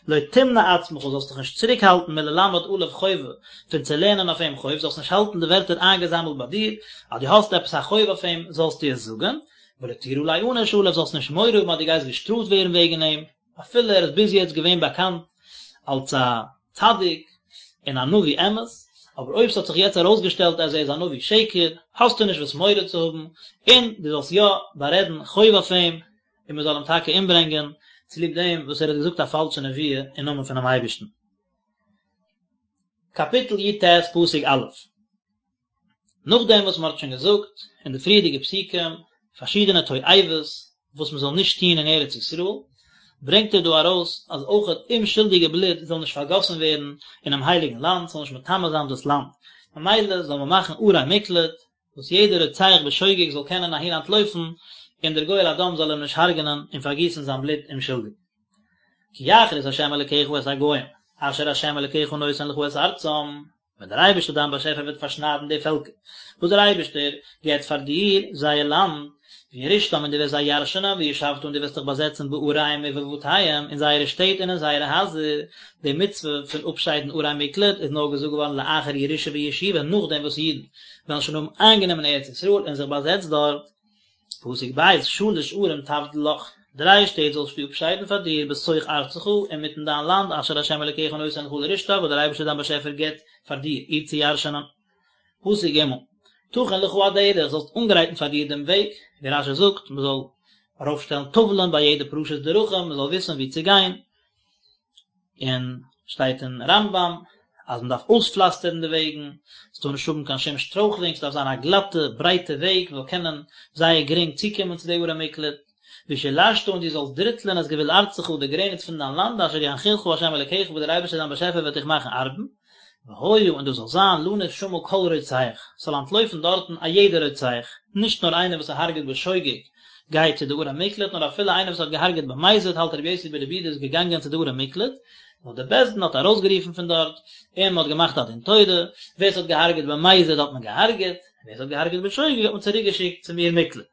לא תמנע עצמך, זאלסט דיך נישט צוריקהאלטן מללמד עליו חובה, פון צו לערנען אויף אים חוב, זאלסט נישט האלטן די ווערטער איינגעזאמלט ביי דיר, אז דו האסט עפעס א חוב אויף אים, זאלסטו עס זאגן, ולא תירא ליענש עליו, זאלסט נישט מורא האבן אז דו גייסט געשטראפט ווערן וועגן אים, אפילו ער איז ביז יעצט געווען באקאנט אלס א צדיק און א נביא אמת, אבער אויב ס'האט זיך יעצט ארויסגעשטעלט אז ער איז א נביא שקר, האסטו נישט וואס מורא צו האבן, און דו זאלסט יא בארעדן חוב אויף אים, און מען זאל אים טאקע אומברענגען, צוליב דעם וואס ער האט געזאגט א פאלשע נבואה אין נאמען פונעם אייבערשטן. קאפיטל י"ט פסוק א'. נאכדעם וואס מען האט שוין געזאגט אין די פריערדיגע פסוקים פארשידענע תועבות וואס מען זאל נישט טון אין ארץ ישראל, ברענגט ער דא ארויס אז אויך אומשולדיגע בלוט זאל נישט פארגאסן ווערן אינעם הייליגן לאנד, ס'זאל נישט מטמא זיין דאס לאנד, ממילא זאל מען מאכן ערי מקלט, וואס יעדער רוצח בשוגג זאל קענען אהין אנטלויפן, און דער גואל הדם זאל אים נישט הרג'נען און פארגיסן זיין בלוט אומשולדיג. כי יכרית ה' אלקיך את הגוים, אשר ה' אלקיך נותן לך את ארצם, ווען דער אייבערשטער דיין באשעפער וועט פארשניידן די פעלקער וואס דער אייבערשטער געבט פאר דיר זייער לאנד, וירשתם און דו וועסט זיי ירשענען, וישבת און דו וועסט דיך באזעצן בעריהם ובבתיהם, אין זייערע שטעט און אין זייערע הייזער, די מצוה פון אפשיידן ערי מקלט איז נאר געזאגט געווארן לאחר ירושה וישיבה נאכדעם וואס אידן וועלן שוין האבן איינגענומען ארץ ישראל און זיך באזעצט דארט. פסוק ב', שלש ערים תבדיל לך, דריי שטעט זאלסטו אפשיידן פאר דיר בתוך ארצך, אינמיטן דיין לאנד, אשר ה' אלוקיך נותן לך לרשתה, וואס דער אייבערשטער דיין באשעפער גיט פאר דיר, איר צו ירשענען. פסוק ג', תכין לך הדרך, זאלסט אנגרייטן פאר דיר דעם וועג, ווי רש"י זאגט, מען זאל ארויפשטעלן טאוולען ביי יעדע פרשת דרכים, מען זאל וויסן וואו צו גיין, און שטייט אין רמב"ם אז מען דארף אויספלאסטערן די וועגן, עס טאר נישט האבן קיין שום שטרויכלונג, עס דארף זיין א גלאטע ברייטע וועג, מען זאל קענען זייער גרינג צוקומען צו די ערי מקלט, ושלשת און דו זאלסט דריטלען את גבול ארצך די גרעניץ פון דיין לאנד אשר ינחילך ה' אלקיך וואס דער אייבערשטער דיין באשעפער וועט דיך מאכן ארבן, והיה און דאס זאל זיין לנוס שמה כל רוצח, ס'זאל אנטלויפן דארטן א יעדער רוצח, נישט נאר איינער וואס הרג'עט בשוגג גייט צו די ערי מקלט, נאר אפילו איינער וואס האט געהארגעט במזיד האלט רבי יוסי ברבי יהודה איז געגאנגען צו די ערי מקלט, נאר די בית דין האט ארויסגערופן פון דארט, און מ'האט געמאכט א דין תורה, ווער ס'האט געהארגעט במזיד האט מען געהארגעט, ווער ס'האט געהארגעט בשוגג האט מען צוריקגעשיקט צום עיר מקלט.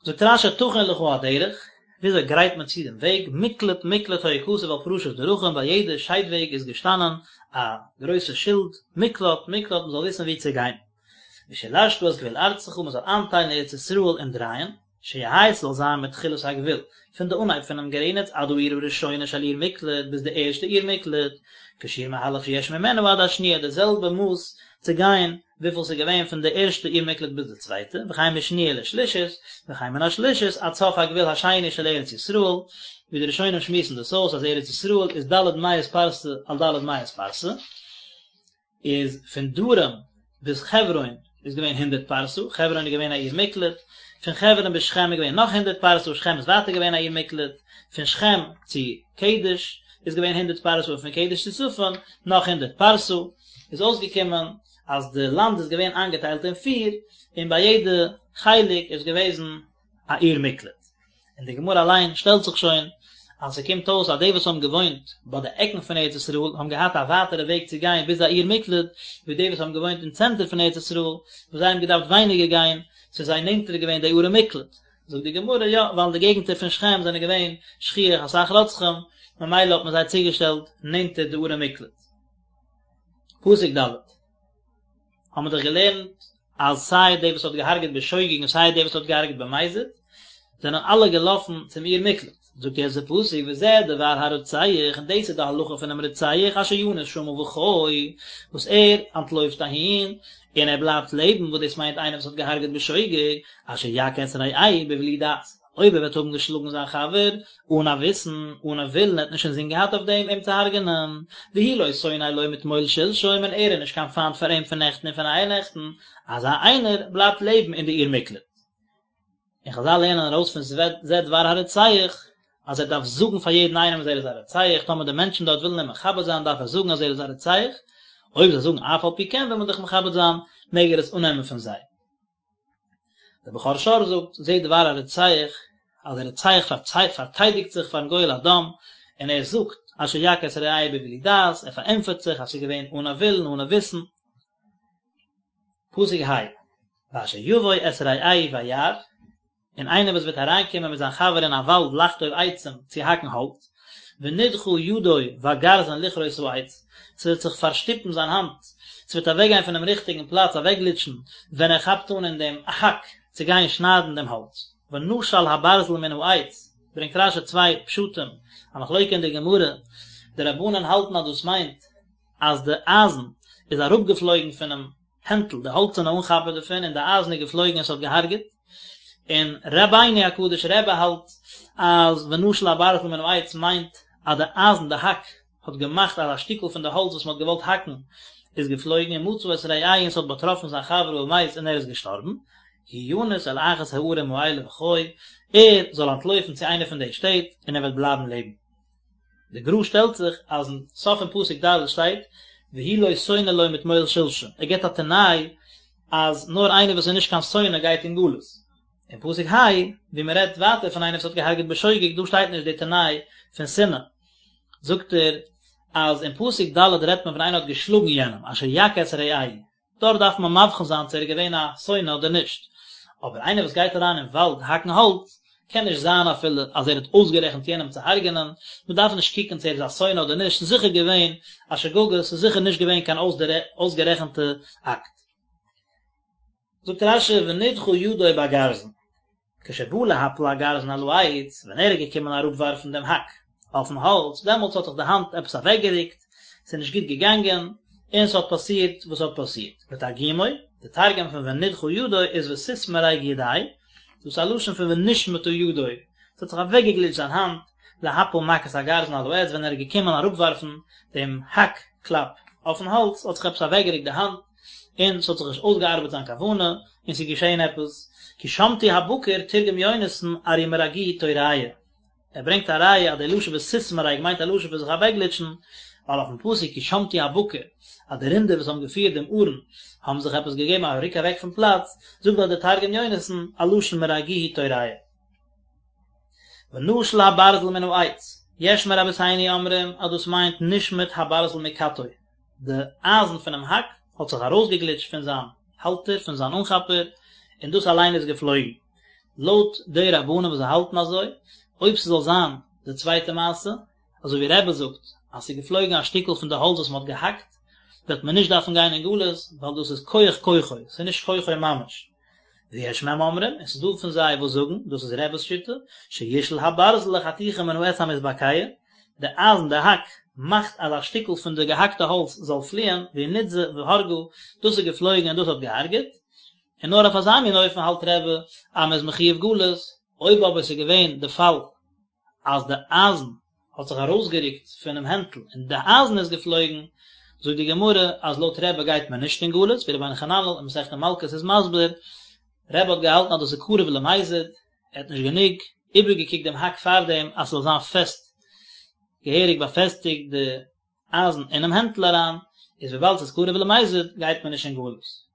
זאגט רש"י תכין לך הדרך, וויאזוי גרייט מען צו דעם וועג, מקלט מקלט היה כתוב על פרשת דרכים, ביי יעדע שיידוועג איז געשטאנען א גרויסע שילד, מקלט מקלט מען זאל וויסן וואו צו גיין. ושלשת את גבול ארצך, מען זאל איינטיילן ארץ ישראל אין דרייען. שיהא ס'זאל זיין מתחילת הגבול, פון די אנהייב פונעם גרעניץ עד העיר הראשונה של עיר מקלט ביז די ערשטע עיר מקלט, כשיעור מהלך שיש ממנה עד השניה די זעלבע מאס צו גיין וויפיל ס'איז געווען פון די ערשטע עיר מקלט ביז די צווייטע, וכן משניה לשלישית, וכן מן השלישית עד סוף הגבול השני של ארץ ישראל, ווי די ראשונים שמועסן דאס אויס אז ארץ ישראל איז ד' מאות פרסה על ד' מאות פרסה. איז פון דרום ביז חברון איז געווען הונדערט פרסה, חברון איז געווען א עיר מקלט, פון חברון ביז שכם איז געווען נאך הונדערט פרסה, שכם איז ווייטער געווען א עיר מקלט, פון שכם צו קדש איז געווען הונדערט פרסה און פון קדש צו צפון נאך הונדערט פרסה, איז אויסגעקומען אז די לאנד איז געווען איינגעטיילט אין פיר, און ביי יעדע חלק איז געוועזן א עיר מקלט. און די גמרא אליין שטעלט זיך שוין אז ס'קומט אויס אז די וואס האבן געוואוינט ביי די עקן פון ארץ ישראל האבן געהאט א ווייטערע וועג צו גיין ביז א עיר מקלט ווי די וואס האבן געוואוינט אין צענטער פון ארץ ישראל וואס זיי האבן געדארפט ווייניגער גיין ס'איז זיי נענטער געווען די ערי מקלט. זאגט די גמרא יא ווייל אין די געגנטער פון שכם זענען געווען שכיח אסאך רוצחים ממילא האט מען זיי צוגעשטעלט נענטער די ערי מקלט. פסוק ד'. האבן מיר דאך געלערנט אז סיי דער וואס האט געהארגעט בשוגג און סיי דער וואס האט געהארגעט במזיד, זענען אלע געלאפן צום עיר מקלט. זאגט יעצט דער פסוק וזה דבר הרוצח, און דאס איז די הלכה פונעם רוצח אשר ינוס שמה וחי, וואס ער אנטלויפט אהין און ער בלייבט לעבן, וואס דאס מיינט איינער וואס האט געהארגעט בשוגג, אשר יכה את רעהו בבלי דעת. אויב ער וועט האבן געשלאגן זיין חבר אן א וויסן, אן א ווילן, ער האט נישט אינזין געהאט אויף דעם אים צו הרג'נען, והוא לא שונא לו מתמול שלשום און ער איז נישט קיין פיינט פאר אים פון נעכטן און פון אייערנעכטן, אזא איינער בלייבט לעבן אין די עיר מקלט. און חזל לערנען ארויס פון זה דבר הרוצח, אז ער דארף זאגן פאר יעדן איינעם אז ער איז א רוצח, טאמער די מענטשן דארט ווילן אים מכבד זיין דארף ער זאגן אז ער איז א רוצח, אויב זיי זאגן אף על פי כן וויל מען דיך מכבד זיין, מעג ער עס אננעמען פון זיי. דער בכור שור זאגט, זה דבר הרוצח, אז דער רוצח פארטיידיגט זיך פארן גואל הדם, און ער זאגט, אשר יכה את רעהו בבלי דעת, ער פארענטפערט זיך אז ס'איז געווען אן א ווילן, אן א וויסן. פסוק ה', ואשר יבוא את רעהו ביער, און איינער וואס וועט אריינקומען מיט זיין חבר אין א וואלד לחטוב עצים צו האקן האלץ, ונדחה ידו בגרזן לכרות העץ, ס'וועט זיך פארשטופן זיין האנט, ס'וועט אוועקגיין פונעם ריכטיגן פלאץ, אוועקגליטשן, ווען ער כאפט אן אין דעם האק צו גיין שניידן דעם האלץ. ונשל הברזל מן העץ, ברענגט רש"י צוויי פשטים, א מחלוקה אין די גמרא, די רבנן האלטן אז דאס מיינט אז די אייזן איז אראפגעפלויגן פונעם הענטל, די האלצערנע אנכאפער דערפון, און די אייזן איז געפלויגן און ס'האט געהארגעט, און רבינו הקדוש רבי האלט אז ונשל הברזל מן העץ מיינט אז די אייזן, די האק, האט געמאכט אז א שטיקל פון די האלץ וואס מ'האט געוואלט האקן איז געפלויגן ומצא את רעהו און ס'האט באטראפן זיין חבר ומת און ער איז געשטארבן, הוא ינוס אל אחת הערים האלה וחי, ער זאל אנטלויפן צו איינע פון די שטעט און ער וועט בלייבן לעבן. די גר"א שטעלט זיך אז אין סוף פון פסוק ד' שטייט והוא לא שונא לו מתמול שלשום, ער גיבט א תנאי אז נאר איינער וואס איז נישט קיין שונא גייט אין גלות. אין פסוק ה' ווי מען רעדט ווייטער פון איינער וואס האט געהארגעט בשוגג דא שטייט נישט די תנאי פון שנאה, זאגט ער אז אין פסוק ד' רעדט מען פון איינער האט געשלאגן יענעם אשר יכה את רעהו, דארט דארף מען מבחין זיין צו ער איז געווען א שונא אדער נישט, אבער איינער וואס גייט אריין אין וואלד האקן האלץ, קען נישט זיין אפילו אז ער האט אויסגערעכנט יענעם צו הרג'נען, מען דארף נישט קוקן צו ער איז א שונא אדער נישט, ס'איז זיכער געווען א שגגה, ס'איז זיכער נישט געווען קיין אויסגערעכנטע אקט. זאגט רש"י ונדחה ידו בגרזן. כשבא להפיל הגרזן על העץ, ווען ער איז געקומען אראפווארפן דעם האק אויפן האלץ, דעמאלטס האט זיך די האנט עפעס אוועקגערוקט, ס'איז נישט גוט געגאנגען, און ס'האט פאסירט וואס האט פאסירט. ותרגומו, די תרגום פון ונדחה ידו איז ותתמריג ידיה, דאס איז א לשון פון ונשמטה ידו, ס'האט זיך אוועקגעגליטשט זיין האנט, להפיל מכת הגרזן על העץ, ווען ער איז געקומען אראפווארפן דעם האק קלאפ אויפן האלץ, האט זיך עפעס אוועקגערוקט די האנט, און ס'האט זיך נישט אויסגעארבעט זיין כוונה, און ס'איז געשען עפעס, כי שמטו הבקר תרגם יונתן ארי מרגוהי תוריא. ער ברענגט א ראיה אז די לשון ותתמרג מיינט א לשון פון זיך אוועקגליטשן, ווייל אויפן פסוק כי שמטו הבקר אז די רינדער וואס האבן געפירט דעם ארון האבן זיך עפעס געגעבן א רוק אוועק פון פלאץ, זאגט דארט דער תרגום יונתן א לשון מרגוהי תוריא. ונשל הברזל מן העץ, יש מרבותינו אומרים אז דאס מיינט נשמט הברזל מכתו, די אייזן פונעם האק האט זיך ארויסגעגליטשט פון זיין האלטער, פון זיין אנכאפער, און דאס אליין איז געפלויגן. לויט די רבנן וואס זיי האלטן אזוי, אויב ס'זאל זיין די צווייטע מעשה, אזוי ווי רבי זאגט אז ס'איז געפלויגן א שטיקל פון די האלץ וואס מ'האט געהאקט, וועט מען נישט דארפן גיין אין גלות, ווייל דאס איז כח כוחו, ס'איז נישט כוחו ממש. ויש מהם אומרים, און ס'איז דא פון זיי וואס זאגן, דאס איז רבי'ס שיטה, שישאל הברזל לחתיכה מן העץ המתבקע, די אייזן, די האק, מאכט אז א שטיקל פון די געהאקטע האלץ זאל פליען, והוא נתזה והרגה, דאס איז געפלויגן און דאס האט געהארגעט, און נאר אויף אזא מין אופן האלט רבי אז מ'איז מחויב גלות, אויב אבער ס'איז געווען די פאל אז די אייזן האט זיך ארויסגערוקט פונעם הענטל און די אייזן איז געפלויגן, זאגט די גמרא אז לויט רבי גייט מען נישט אין גלות, ווי רבינו חננאל אין מסכת מלקות איז מסביר, רבי האט געהאלטן אז דאס איז קרוב למזיד, ער האט נישט גענוג איבערגעקוקט דעם האק פארדעם אז ס'זאל זיין פעסט, געהעריג באפעסטיגט די אייזן אינעם הענטל אריין, איז וויבאלד ס'איז קרוב למזיד גייט מען נישט אין גלות.